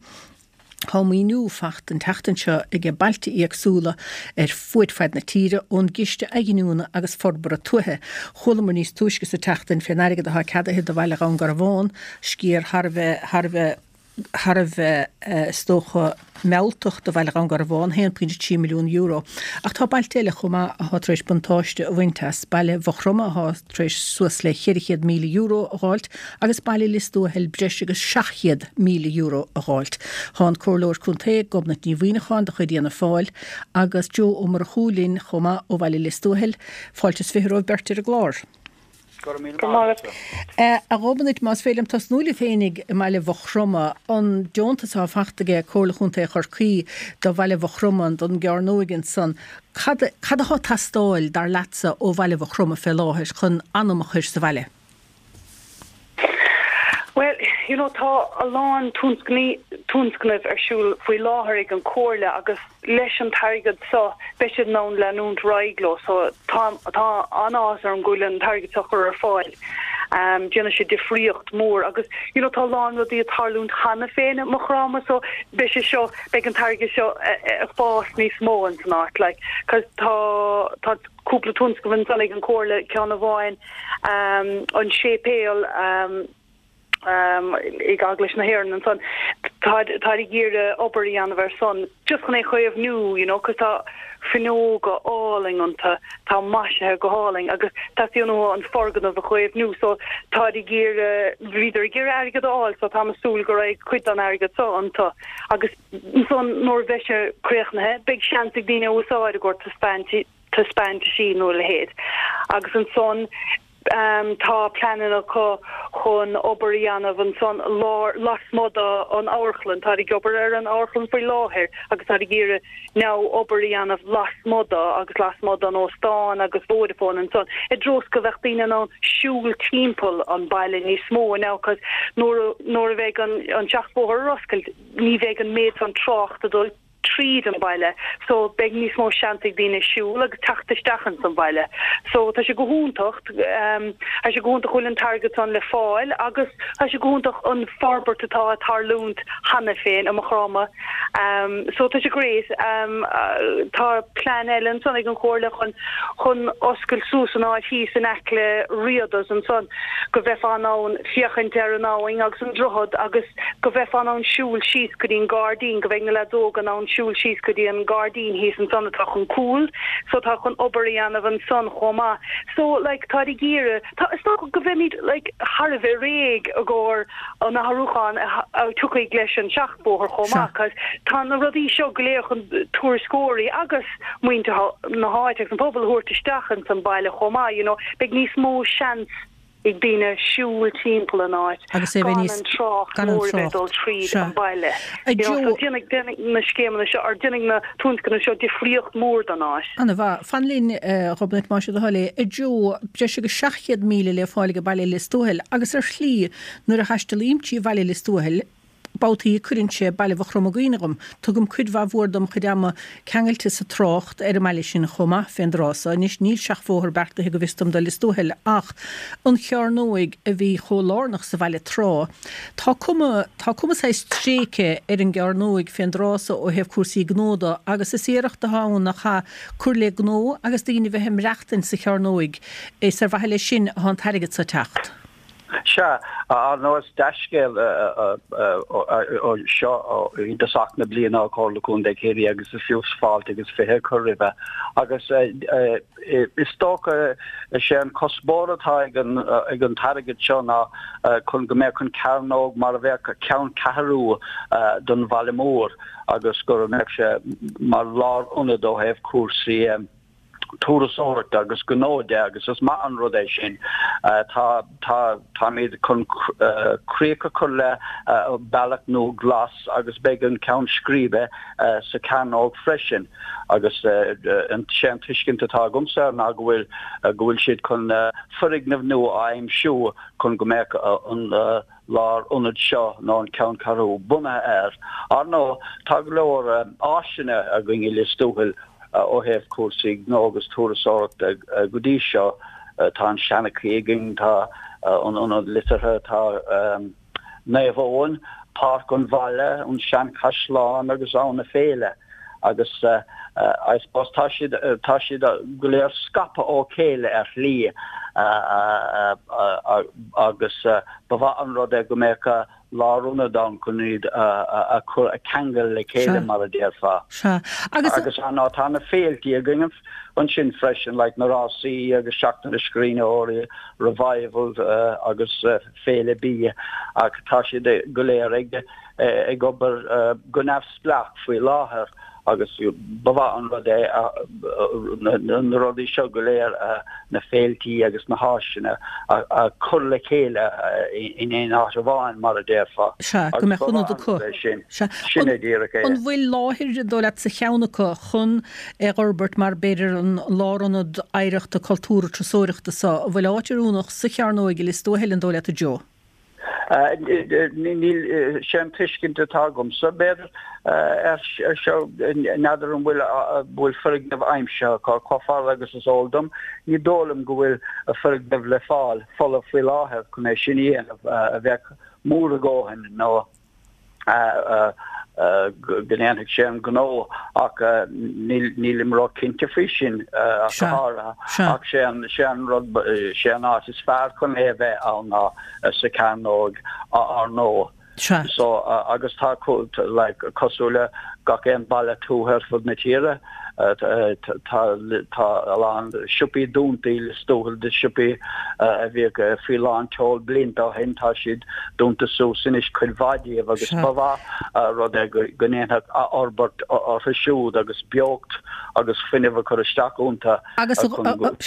Tá maoiniú fachta an tseachtain seo aige bailte éagsúla ar fuaid faid na tíre ón gCiste Athghiniúna agus Forbartha Tuaithe. Chualamar níos túisce sa tseachtain fén airgead atá ceadaithe do bhaile Dhún Garbhán, sciar thar a bheith, thar a bheith, thar a bheith, is dócha, mealltach do bhaile Dhún Garbhán, €1.3 milliún. Ach tá bailte eile chomh maith atá tar éis buntáiste a bhaint as, baile Mhaigh Chromtha atá tar éis suas le €400,000 a dh'fháilt agus baile Lios Tuathail breis agus €700,000 a dh'fháilt. Tá an Comhairleoir Contae, Gobnait Ní Mhuineacháin de chuid Fhianna Fáil agus Joe Ó Murchú linn chomh maith ó bhaile Lios Tuathail. Fáilte is 20 romhaibh beirt ar an gclár. Go raibh míle maith agat. A Ghobnait, más féidir liom tosnú libh féinig i mbaile Mhaigh Chromtha, an deontas atá fachta aige Comhairle Chontae Chorcaí do bhaile Mhaigh Chromtha, don gcearnóig ansan, cad cad atá ag teastáil, dar leatsa, ó bhaile Mhaigh Chromtha fé láthair chun anam a chur sa bhaile? Bhuel, you know, tá a lán tionscnaimh ar siúl faoi láthair ag an Chomhairle agus leis an t-airgead seo beidh siad in ann leanúint ar aghaidh leo. So tá tá an-áthas orm go bhfuil an t-airgead seo curtha ar fáil. Um, déanfaidh sé difríocht mór agus you know, tá a lán rudaí ag tarlúint cheana féin i Maigh Chromtha so beidh sé seo beidh an t-airgead seo ag fás níos mó in san áit like, cos tá tá cúpla tionscnamh ansan ag an Chomhairle, ceann amháin, an séipéal ag Eaglais na hÉireann ansan, táid ag iarraidh obair a dhéanamh ar san, just chun é a chaomhnú, you know, cos tá fuinneoga álainn iontu, tá maisithe go hálainn agus teastaíonn uathu an foirgneamh a chaomhnú so táid ag iarraidh, bhíodar ag iarraidh airgead a fháil so táim ag súil go raghaidh cuid den airgead so iontu agus ansan nuair a bheidh sé críochnaithe beidh seans ag daoine a úsáid i gcomhair taispeáint taispeántaisí nó a leithéid. Agus ansan. Tá pleananna acu chun obair a dhéanamh ansan lár, lasmuigh den amharclann. Táid ag obair ar an amharclann faoi láthair agus táid ag iarraidh now obair a dhéanamh lasmuigh de agus lasmuigh den óstán agus Vodafone ansan i dtreo is go bheadh daoine in ann siúl timpeall an baile níos mó now cos nuair a nuair a bheidh an an seachbhóthar ar oscailt ní bheidh an méid san trácht ag dul tríd an baile so beidh níos mó seans ag daoine siúl agus teacht isteach ins an bhaile so tá sé go hiontach ehm tá sé go hiontach go bhfuil an t-airgead san le fáil agus tá sé go hiontach an forbairt atá ag tarlúint cheana féin i Maigh Chromtha So tá sé great. Tá plean eile ansan ag an Chomhairle chun chun oscailt suas an áit thíos in aice le Riada's ansan go bheifeá in ann féachaint ar an abhainn agus an droichead agus go bheifeá in ann siúl síos go dtí an gairdín, go mbeidh na leaids óga in ann siúl síos go dtí an gairdín thíos ansan atá chun cúl. So tá chun obair a dhéanamh ansan chomh maith. So like táid ag iarraidh, tá, is dócha go mbeimid like thar a bheith réidh i gcomhair an athrúchán a tiocfaidh leis an seachbhóthar chomh maith cos tá na rudaí seo go léir chun turasóirí agus muintir na háite agus an pobal a thabhairt isteach ins an baile chomh maith you know beidh níos mó seans ag daoine siúl timpeall an áit Agus é bheith gan an trácht gan an mór a bheith ag dul trácht. tríd Sea. an baile A you know so Joe, déanfaidh déanfaidh na scéimeanna seo or déanfaidh na tionscnaimh seo difríocht mór don áit. Ana mhaith. Fan linn, a Ghobnait, más é do thoil é. A Joe, breis agus 700,000 le fáil ag baile Lios Tuathail agus ar shlí nuair a thaistealaím trí bhaile Lios Tuathail, babhtaí cuireann sé baile Mhaigh Chromtha i gcuimhne dhom. Tugaim cuid mhaith mhór dom chuid ama ceangailte sa trácht ar an mbaile sin chomh maith fén dtráth so. Anois níl seachbhóthar beartaithe go bhfios dom do Lios Tuathail ach an chearnóig a bhí chomh lárnach sa bhaile tráth. Tá cuma, tá cuma saghas tréigthe ar an gcearnóig fén dtráth so ó thaobh cúrsaí gnó de agus is iarracht atá ann nach ea cur le gnó agus daoine bheith ag maireachtaint sa chearnóig. Is ar mhaithe leis sin atá an t-airgead so ag teacht. Sea, ar ndóigh is dea-scéal seo i dtosach na bliana ó Chomhairle Contae Chiarraí agus is fiú fáilte agus 20 a chur roimhe. Agus is dócha is é an cuspóir atá ag an t-airgead seo ná chun go mbeadh an cearnóg mar a bheadh ceanncheathrú don bhaile mór agus go mbeadh sé mar lárionad ó thaobh cúrsaí turasóireachta agus gnó de agus is maith an rud é sin. Tá, tá, táimid chun críoch a chur le bealach nua glas agus beidh an ceann scríbe sa chearnóg freisin agus sé an tuiscint atá agamsa ná go bhfuil, go bhfuil siad chun foirgneamh nua a aimsiú chun go mbeadh an lárionad seo nó an ceanncheathrú bunaithe air. Ar ndóigh, tá go leor áiseanna againn i Lios Tuathail ó thaobh cúrsaí gnó agus turasóireachta go dtí seo. Tá an Seanchaí againn, tá an Ionad Liteartha, tá Naomh Eoin, Páirc an Bhaile, an Seanchaisleán agus Abha na Féile. Agus I suppose tá siad, tá siad go léir scaipthe ó chéile ar shlí agus ba mhaith an rud é go mbeadh lárionad ann chun iad a chur, a cheangal le chéile mar a déarfá. Sea. Agus. Agus ar ndóigh tá na féiltí againn ansin freisin, like na rásaí agus Seachtain na Scríbhneoirí, Revival agus Féile Bídh ach tá siad go léir ag ag obair go neamhspleách faoi láthair agus ba mhaith an rud é na rudaí seo go léir, na féiltí agus na háiseanna, a chur le chéile in aon áit amháin, mar a déarfá. Sea, go mbeadh ionad acu. Sin, sin é díreach é. An bhfuil láthair, an dóigh leat, sa cheann acu chun é a fhorbairt mar b'fhéidir an lárionad oidhreachta cultúrtha turasóireachta so? An bhfuil áit oiriúnach sa Chearnóig i Lios Tuathail, an dóigh leat, a Joe? Níl, sé an tuiscint atá agamsa, b'fhéidir, ar seo, n'fheadar an bhfuil, bhfuil foirgneamh aimsithe acu, chomh fada agus is eol dom, ní dóigh liom go bhfuil foirgneamh le fáil, folamh faoi láthair chun é sin a dhéanamh, a bheadh mór a dhóthain nó. go ndéanfadh sé an gnó ach nílim ró-chinnte faoi sin ach go háirithe. Ach sé an, sé an rud, sé an áit is fearr chun é a bheith ann ná sa Chearnóg ar ndóigh. So agus tá like cosúil le gach aon baile tuaithe ar fud na tíre, tá tá a lán siopaí dúnta i Lios Tuathail de siopaí a bhíodh faoi lán tseoil blianta ó shin, tá siad dúnta suas anois cuid mhaith díobh agus ba mhaith an rud é go ndéanfadh athfhorbairt orthu siúd agus beocht agus fuinneamh a chur isteach iontu Agus,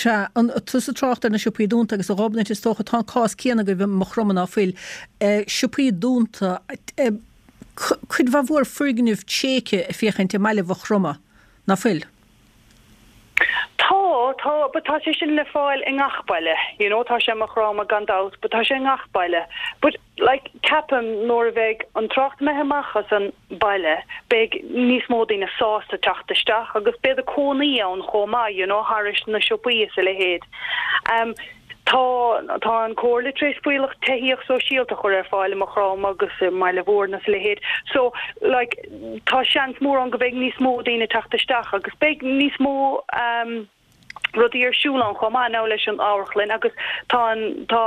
sea, tusa ag trácht ar na siopaí dúnta agus a Ghobnait is dócha tá an cás céanna agaibh i Maigh Chromtha ná fuil, siopaí dúnta, cuid mhaith mhór foirgnimh tréigthe ag féachaint i mbaile Mhaigh Chromtha, ná fuil? Tá, tá, but tá sé sin le fáil i ngach baile, you know, tá sé i Maigh Chromtha gan dabht, but tá sé i ngach baile. But, like, ceapaim nuair a bheidh an trácht imithe amach as an baile, beidh níos mó daoine sásta teacht isteach agus beidh cónaí ann chomh maith, you know, thairis na siopaí is a leithéid. Um, Tá, tá an Comhairle tar éis fuíollach tithíocht sóisialta a chur ar fáil i Maigh Chromtha agus i mBaile Mhúirne is a leithéid. So, like, tá seans mór ann go mbeidh níos mó daoine ag teacht isteach agus beidh níos mó um, rudaí ar siúl ann chomh maith now leis an amharclann agus tá an, tá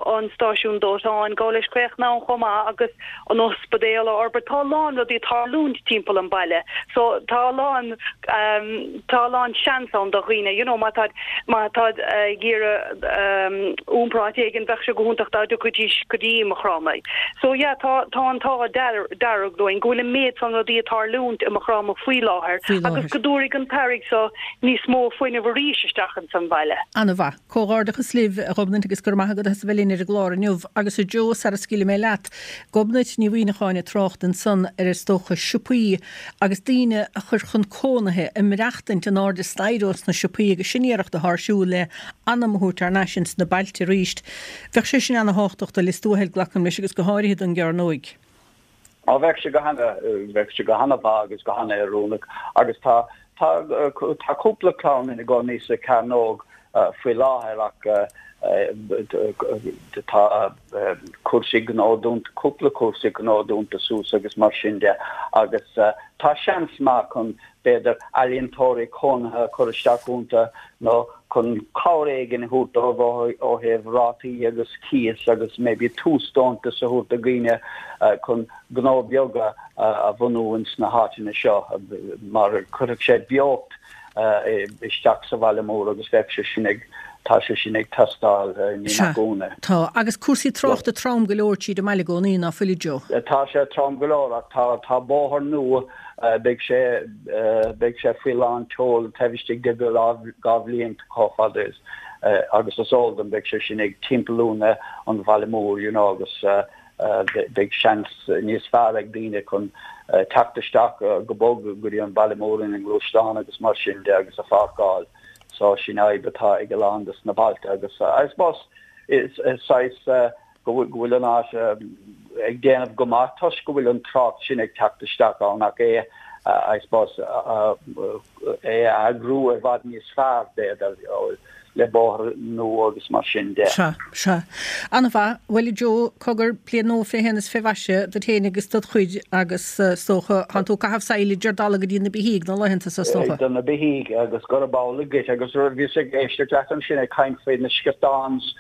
an stáisiún dóiteáin ag gabháil leis críochnú ann chomh maith agus an ospidéal á fhorbairt. Tá a lán rudaí ag tarlúint timpeall an baile so tá a lán um, tá a lán seans ann do dhaoine you know má tá má tá ag iarraidh um, iompar áit éigin bheadh sé go hiontach dá dtiocfaidís go dtí Maigh Chromtha. So yeah tá tá an t-ádh dearg linn go bhfuil an méid san rudaí ag tarlúint i Maigh Chromtha faoi láthair agus go dtabharfaidh an t-airgead so níos mó fuinnimh arís isteach ins an bhaile. An-mhaith. Comhghairdeachas libh, a Ghobnait, agus go raibh maith agat as a bheith linn ar an gclár inniu. Agus a Joe, sara scaoilfidh mé leat, Gobnait Ní Mhuimhneacháin ag trácht ansan ar is dócha siopaí agus daoine a chur chun cónaithe, ag maireachtaint in airde staighre ós na siopaí agus sin iarracht atá ar siúl le anam a thabhairt thar n-ais ins na bailte arís. Bheadh sé sin ana-thábhachtach do Lios Tuathail, glacaim leis, agus go háirithe don gCearnóig. Á, bheadh sé go hana, bheadh sé go hana-mhaith agus go hana-oiriúnach agus tá, tá, tá cúpla clann ina gcónaí sa Chearnóg faoi láthair ach tá cúrsaí gnó dúnta, cúpla cúrsaí gnó dúnta suas agus mar sin de agus tá seans maith chun b'fhéidir ealaíontóirí cónaithe a chur isteach iontu nó chun cabhair éigin a thabhairt dóibh ó thaobh rátaí agus cíos agus maybe túsdeontas a thabhairt do dhaoine chun gnó beaga a bhunú ins na háiteanna seo mar chuirfeadh sé beocht isteach sa bhaile mór agus bheadh sé sin ag tá sé sin ag teastáil ní nach ionadh. Tá. Agus cúrsaí tráchta trom go leor tríd an mbaile i gcónaí, ná fuil a Joe? Tá sé trom go leor ach tá tá bóthar nua Beidh sé, beidh sé faoi lán tseoil taobh istigh de 2 bhliain chomh fada is agus is eol dom beidh sé sin ag timpeallú na an bhaile mór you know agus beidh seans níos fearr ag daoine chun teacht isteach go bog go dtí an baile mór ina ngluaisteán agus mar sin de agus a pháirceáil. So sin fhadhb atá ag a lán des na bailte agus I suppose is saghas go bhfuil an áit ag déanamh go maith toisc go bhfuil an trácht sin ag teacht isteach ann ach é, I suppose, é a eagrú i bhfad níos fearr, b'fhéidir, le bóthar nua agus mar sin de. Sea, sea. An-mhaith. Bhuel, a Joe, cogar, bliain nua fé shéan is fé mhaise duit féin agus dod chuid agus, is dócha, tánn tú ag caitheamh saill ar dalladh go dtí na beithígh na laethanta so, is dócha. Do na beithígh agus gurab amhlaidh duit agus bhíos ag éisteacht leat ansin ag caint faoi na sciortáns,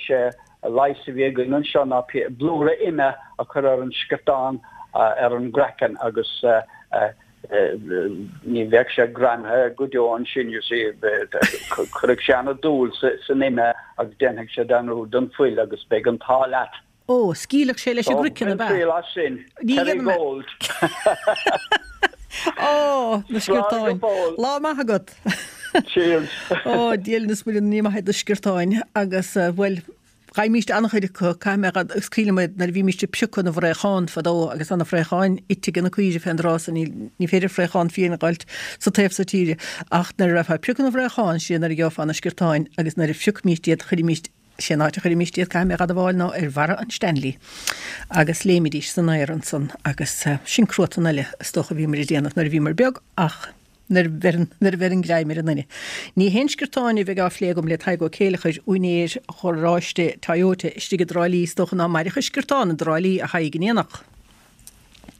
sé leigheas a bhí againn anseo ná blúire ime a chur ar an sciortán ar an gcraiceann agus ní bheadh sé greamaithe go deo ansin, you see, cuirfidh sé ana-dúil san ime agus déanfaidh sé dearúd den fuil agus beidh an t-ádh leat. Ó, scaoilfeadh sé leis an gcraiceann, ab ea? Bain triail as sin, Kerrygold. Ó, na sciortáin. Lá maith agat. Cheers. Ó, Dia linn is Muire ní maith iad na sciortáin agus, bhuel, gheibhimíst an-chuid acu, caithfidh mé a, agus cuimhním nuair a bhímíst ag piocadh na bhfraochán fadó agus tá na fraocháin ite ag na caoirigh fén dtráth so ní, ní féidir fraochán fiáin a dh'fháilt sa taobh so tíre ach nuair a raibh ag piocadh na bhfraochán, sin nuair a gheofá na sciortáin agus nuair a phiocfaimíst iad chuirimíst Sé an áit a chuirimíst iad, caithfidh mé a dh'admháil, ná ar bharra an Stanley agus léimidís san aer ansan agus sin cruatan eile is dócha a bhíomar ag déanamh nuair a bhíomar beag ach nuair a bheireann, nuair a bheireann greim ar an nduine. Ní haon sciortáin a bheidh á phlé agam le Tadhg Ó Céileachair, úinéir gharáiste Toyota istigh i dTrá Lí, is dócha ná mairfeadh sciortán i dTrá Lí, a Thaidhg, in aon fhocal.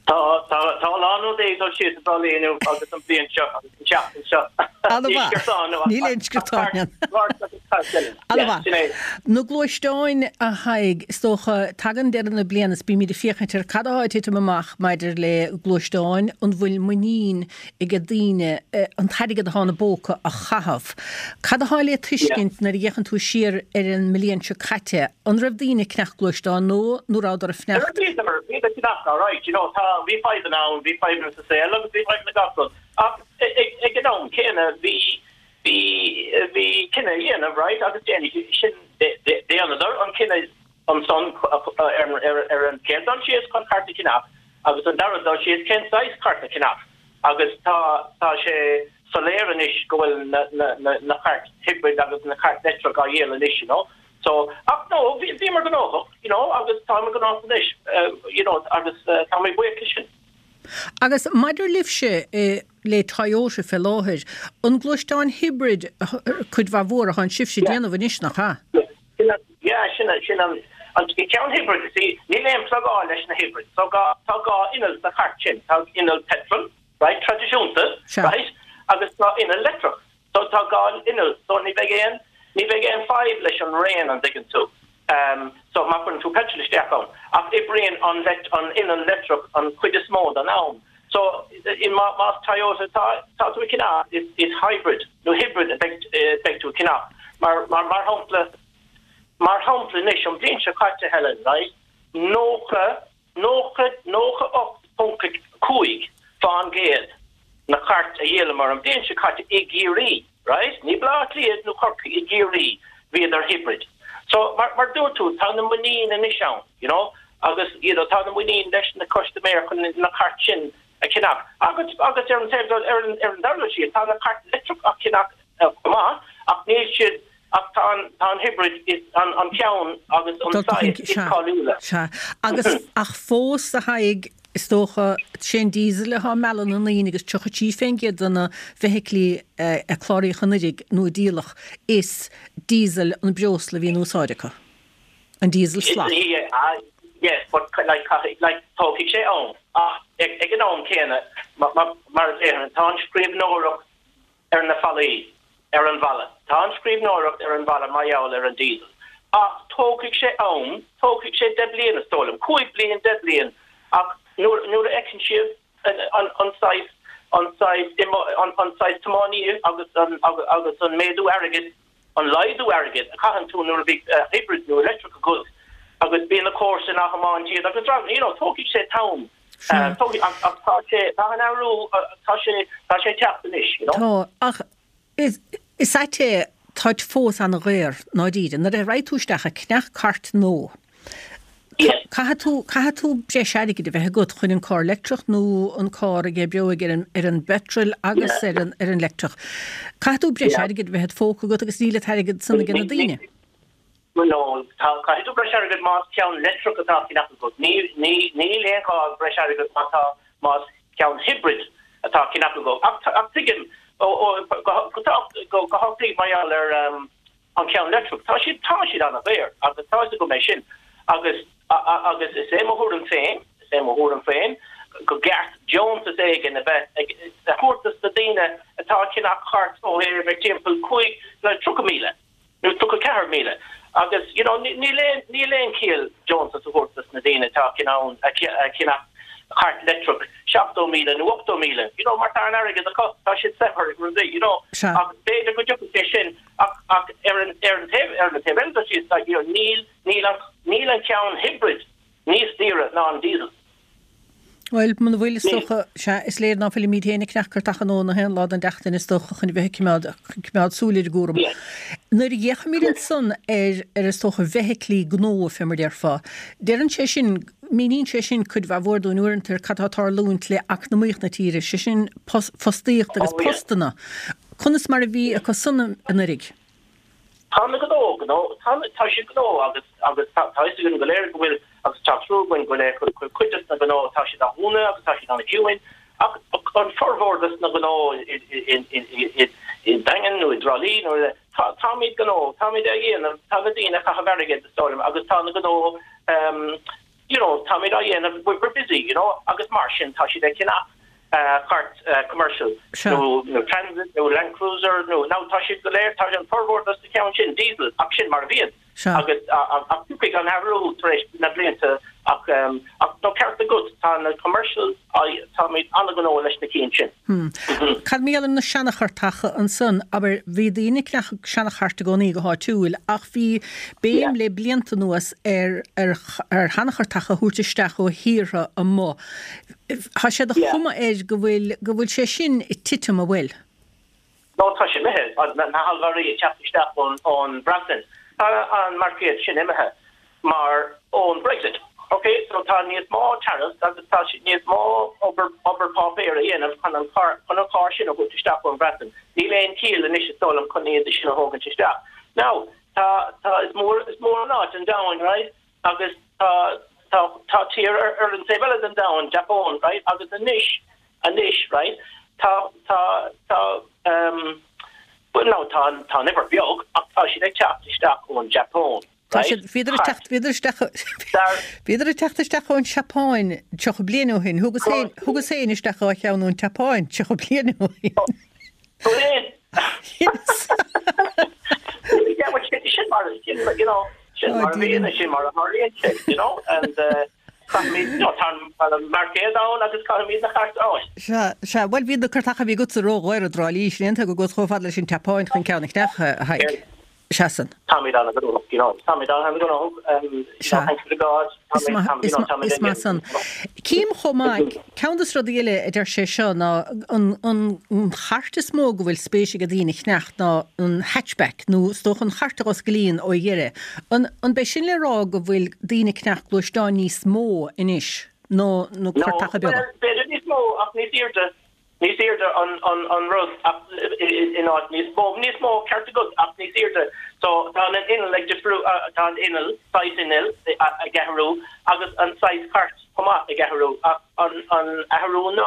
Tá, tá, tá a lán rudaí ag dul síos i dTrá Lí inniu agus an bhliain seo agus an tseachtain seo. Ana-mhaith. Níl aon sciortáin ann. Ana-mhaith. Na gluaisteáin, a Thaidhg, is dócha, tagann deireadh na bliana is bímid ag féachaint ar cad atá ag titim amach maidir le gluaisteáin, an bhfuil muinín ag daoine an t-airgead atá ina bpóca a chaitheamh. Cad atá le tuiscint nuair a fhéachann tú siar ar an mbliain seo caite? An raibh daoine ag ceannach gluaisteán nó nó rabhadar ag fanacht? Bhíodar, bhíodar ag ceannach, alright, you know, tá, bhí fadhbanna ann, bhí fadhbanna sa saol agus bhí fadhbanna gach rud. Ach ag an am. céanna bhí bhí bhí cinneadh a dhéanamh right agus déanfaidh sin déanadar an cinneadh ansan ar an chéad dul síos chun cairt a cheannach agus an dara dul síos cén saghas cairt a cheannach agus tá tá sé soiléir anois go bhfuil na na na na cairt hybrid agus na cairt leictreach á dhíol anois you know so ach no bhí bhíomar gnóthach you know agus táimid gnóthach anois you know agus táimid buíoch leis sin. Agus maidir libhse le Toyota fé láthair, an gluaisteáin hybrid cuid mhaith mhór atánn sibhse ag déanamh anois, nach ea? Yeah, sin sin an an ceann hybrid, see, níl aon plugáil leis na hybrid, so gá tá gá inneall sa chairt sin, tá inneall petrol, right, traidisiúnta, right, agus tá inneall leictreach. So tá gá inneall, so ní bheidh aon, ní bheidh aon fadhb leis an raon, an dtuigeann tú. So má chuireann tú petrol isteach ann, ach oibríonn an an inneall leictreach an chuid is mó den am. So in má más Toyota tá tá tú ag ceannach, is is hybrid nó hibrid a bheidh beidh tú ag ceannach. Mar mar mar shampla mar shampla anois an bhliain seo caite Helen, right, 90 90, 98.5% na cairt a dhíolamar an bhliain seo caite i gCiarraí, right, ní Baile Átha Cliath nó Corcaigh, i gCiarraí, bhíodar hybrid. So, mar, mar dúirt tú, tá na muinín anois ann, you know, agus, you know, tá na muinín leis na custaiméir chun na cairt sin a cheannach. Agus, agus ar an taobh, ar an, ar an dara dul síos, tá na cairt leictreach á cheannach chomh maith, ach níl siad, Ach tá an, tá an hybrid is an, an ceann agus an saghas is cáiliúla. Sea. Agus, ach fós, a Thaidhg, is dócha, sé an diesel atá ag mealladh na ndaoine agus 33% de na feithiclí a cláraíodh anuraidh nó a díoladh, is diesel an breosla a bhí in úsáid acu. An diesel salach. Yes, but like, like, tógfaidh sé am. Ach ag an am céanna, mar a déarfainn, tá an scríbhneoireacht ar na fallaí, ar an bhfalla. Tá an scríbhneoireacht ar an bhfalla mar gheall ar an diesel. Ach tógfaidh sé am, tógfaidh sé 10 bliain is dóigh liom, 5 bliain, 10 bliain, ach nuair, nuair a fheiceann siad an, an saghas, an saghas, an, an saghas tiománaí agus an, agus an méadú airgid, an laghdú airgid a chaitheann tú nuair a bhí hybrid nó electric agat agus bíonn na comharsain á thiomáint iad agus, you know, tógfaidh sé t-am. Ach tá sé, tá an athrú, tá sé, tá sé ag teacht anois, you know. Tá, ach is, is ait é, táid fós ana-dhaor, ndáiríre. Nuair a raghaidh tú isteach ag ceannach cairt nua, caithfidh tú, caithfidh tú breis airgid a bheith agat chun an carr leictreach nó an carr a oibreoidh ar an, ar an bpeitreal agus ar an, ar an leictreach. Caithfidh tú breis airgid a bheith id phóca agat agus níl an t-airgead san ag na daoine. No, tá, caithfidh tú breis airgid más ceann leictreach atá á cheannach agat. Ní, ní, níl aon ghá breis airgid má tá, más ceann hybrid atá á cheannach agat. Ach, ach tuigim, ó, ó, go, go, go, go háirithe mar gheall ar an cheann leictreach, tá siad, tá siad an-dhaor agus tá fhios agam é sin. Agus, agus is é mo thuairim féin, is é mo thuairim féin, go gceart deontas éigin a bheith ag, a thabhairt dos na daoine atá ag ceannach cairt ó thaobh ag timpeall 5, le 30,000. nó 34,000 agus you know níl aon níl aon chiall deontas a thabhairt dos na daoine atá in ann a cheannach cairt leictreach 70,000 nó 80,000 you know mar tá an airgead acu tá siad saibhir rudaí you know Sea. ach b'fhéidir go dtiocfaidh sé sin ach ach ar an ar an taobh ar an taobh eile de síos like you know níl níl an níl an ceann hybrid níos daoire ná an diesel. Bhuel, muna bhfuil, is dócha, sea, is léir ná fuilimid féin ag ceannach cairteacha nua na haon lá den tseachtain, is dócha, chun a bheith ag coimeád, coimeád súil ar an gcúram. Nuair a fhéachaimid ansan ar, ar is dócha, bhfeithiclí gnó, fé mar déarfá, deireann sé sin, míníonn sé sin cuid mhaith mhór dúinn uaireanta ar cad tá ag tarlúint le eacnamaíocht na tíre, sé sin fostaíocht agus postanna. Conas mar a bhí acu san anuraidh? Tá na gnó, gnó, tá, tá siad gnó agus, agus tá, tá fhios againn go léir go bhfuil, agus tá trua againn go léir go bhfuil cuid des na gnó, tá siad á dhúnadh agus tá siad an-chiúin ach an formhór des na gnó i, i, i, i, i, i Daingean nó i dTrá Lí nó i, tá, táimid gnó, táimid á dhéanamh, tá na daoine ag caitheamh airgid is dóigh liom agus tá na gnó, ehm, you know, táimid á dhéanamh, we're busy, you know, agus mar sin tá siad ag ceannach cairt commercial nó nó Transit nó Land Cruiser nó now tá siad go léir, tá an formhór dos na ceann sin diesel ach sin mar a bhíonn agus ach tiocfaidh an athrú tar éis na blianta ach ach tá ceart agat tá na commercial táimid an-ghnóthach leis na cinn sin. Cad mar gheall ar na seanachartacha ansan? Abair, bhí daoine ag ceannach seanachairt i gcónaí go háitiúil ach bhí béim le blianta anuas ar ar ar sheanachartacha a thabhairt isteach ó thíortha amuigh. Tá sé de chuma air go bhfuil go bhfuil sé sin ag titim, an bhfuil? No tá sé imithe, na hallmhairí ag teacht isteach ón Bhreatain, tá an marcaed sin imithe mar ón Brexit. Ok, so tá níos mó tariffs agus tá níos mó obair obair páipéir a dhéanamh chun an carr chun an carr sin a thabhairt isteach ón Bhreatain. Níl aon chiall anois is dóigh liom chun iad sin a thógaint isteach. Now, tá tá is mór is mór an áit an domhan, right? Agus tá tá tá tír ar ar an taobh eile den domhan, Japan, right? Agus anois Anois, right, tá, tá, tá, ehm, bhuel now tá an, tá an uimhir beag ach tá siad ag teacht isteach ón Japan, Tá right? siad, bhíodar ag teacht, bhíodar isteach, Dar, bhíodar ag teacht isteach ón Seapáin 30 bliain ó shin. Thugas féin, thugas féin isteach dhá cheann ón tSeapáin 30 bliain ó shin. Tú féin? Yes. Yeah, well, sin, sin mar, sin, you know, sin Oh, mar a bhíonn, dear. sin mar a tharlaíonn sé, you know, and, uh, Caithfimid, no, tá an marcaed ann agus caithfimid na cairt a fháil. Sea, sea, bhuel bhí na cairteacha a bhí agatsa ródhaor i dTrá Lí, sin é an tuige go gcuas chomh fada leis an tSeapáin chun ceann a cheannach, a Thaidhg. Sea san. Táimid an-ghnóthach, you know, táimid an-ghnóthach, you know, Sea. thanks to God, Is táimid, maith, táimid, is you know, maith, táimid is maith san. Cím chomh maith, ceann de na rudaí eile a deir sé seo ná an, an, an chairt is mó go bhfuil spéis ag daoine a cheannach ná an hatchback nó is dócha an chairt a dh'osclaíonn ó dheireadh. An, an b'é sin le rá go bhfuil daoine ag ceannach gluaisteáin níos mó anois ná na No, cairteacha beaga? bhuel, b'fhéidir níos mó ach níos airde, níos airde an, an, an rud ach in áit níos mó, níos mó ceart agat ach níos airde. So tá an inneall ag difriú, tá an inneall, saghas innill ag athrú agus an saghas cairt chomh maith ag athrú ach an, an athrú ná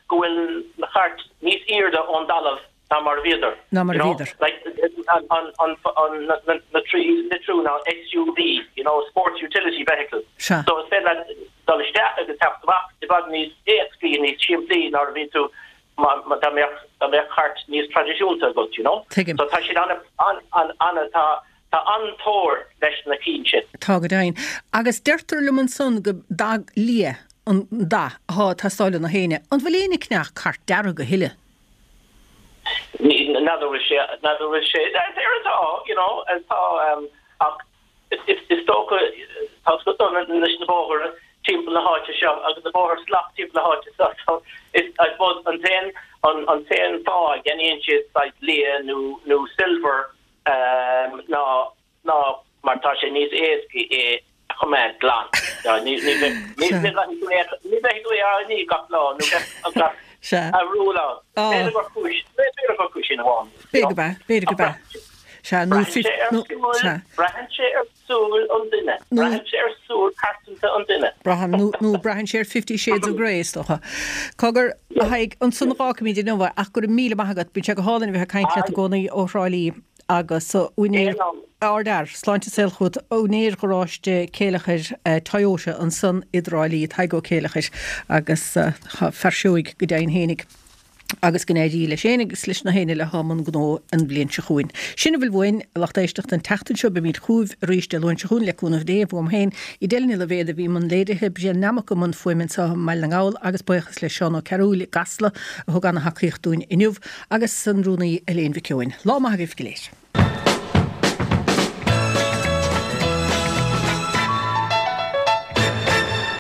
go bhfuil na cairt níos airde ón dtalamh ná mar a bhíodar. Ná mar a you know? bhíodar. Like, an, an, an, an, na, na, na trí litriú ná SUV, you know, Sports Utility Vehicle. Sea. So is féidir leat dul isteach agus teacht amach i bhfad níos éascaí, níos simplí ná a bhí tú má, má, dá mbeadh, dá mbeadh cairt níos traidisiúnta agat, you know? Tuigim. So tá siad ana, an, an, ana, tá, tá an-tóir leis na cinn sin. Tá go deimhin. Agus deirtear liom ansan go dath liath an dath athá ag teastáil ó na héinne. An bhfuil éinne ag ceannach cairt dearg a thuilleadh? N'fheadar bhfuil sé, n'fheadar bhfuil sé, there atá, you know, tá, ach is dócha, tá a fhios agat leis na bóithre timpeall na háite seo agus na bóithre salach timpeall na háite seo, so is, I suppose an t-aon, an t-aon fáth a gceannaíonn siad saghas liath nó, nó silver ná, ná mar tá sé níos éascaí é a choimeád glan. Ní bheidh tú é á ní gach lá nó gach athrú lá. B'fhéidir gur cúis, b'fhéidir gur cúis sin amháin. B'fhéidir gurb ea, b'fhéidir gurb ea. Sea, nó Braitheann braitheann sé ar súil an duine, braitheann sé ar súil pearsanta an duine. Braitheann, nó braitheann sé ar Fifty Shades of Grey, is dócha. Cogar, a Thaidhg, ansan a dh'fhágfaimid inniu é, ach go raibh míle maith agat, bíonn sé go hálainn a bheith ag caint leat i gcónaí ó Thrá Lí. agus úinéir ardfhear, sláinte is saol chugat, úinéir gharáiste Céileachair Toyota ansan i dTrá Lí, Tadhg Ó Céileachair, agus fear seoigh go deimhin fhéinig agus go n-éirí leis fhéin agus leis na héinne eile athá i mbun gnó an bhliain seo chugainn. Sin a bhfuil uainn, a lucht éisteachta, an tseachtain seo. Beimid chugaibh arís Dé Luain seo chugainn, le cúnamh Dé, uaim féin, Edel Ní Loibhéad a bhí i mbun léirithe, Brian Nammock i mbun fuaime anseo i mBaile na nGall agus buíochas le Seán Ó Cearúil i gCasla a thug ana-thacaíocht dúinn inniu. Agus an Rúnaí Elaine Mhic Eoin. Lá maith agaibh go léir.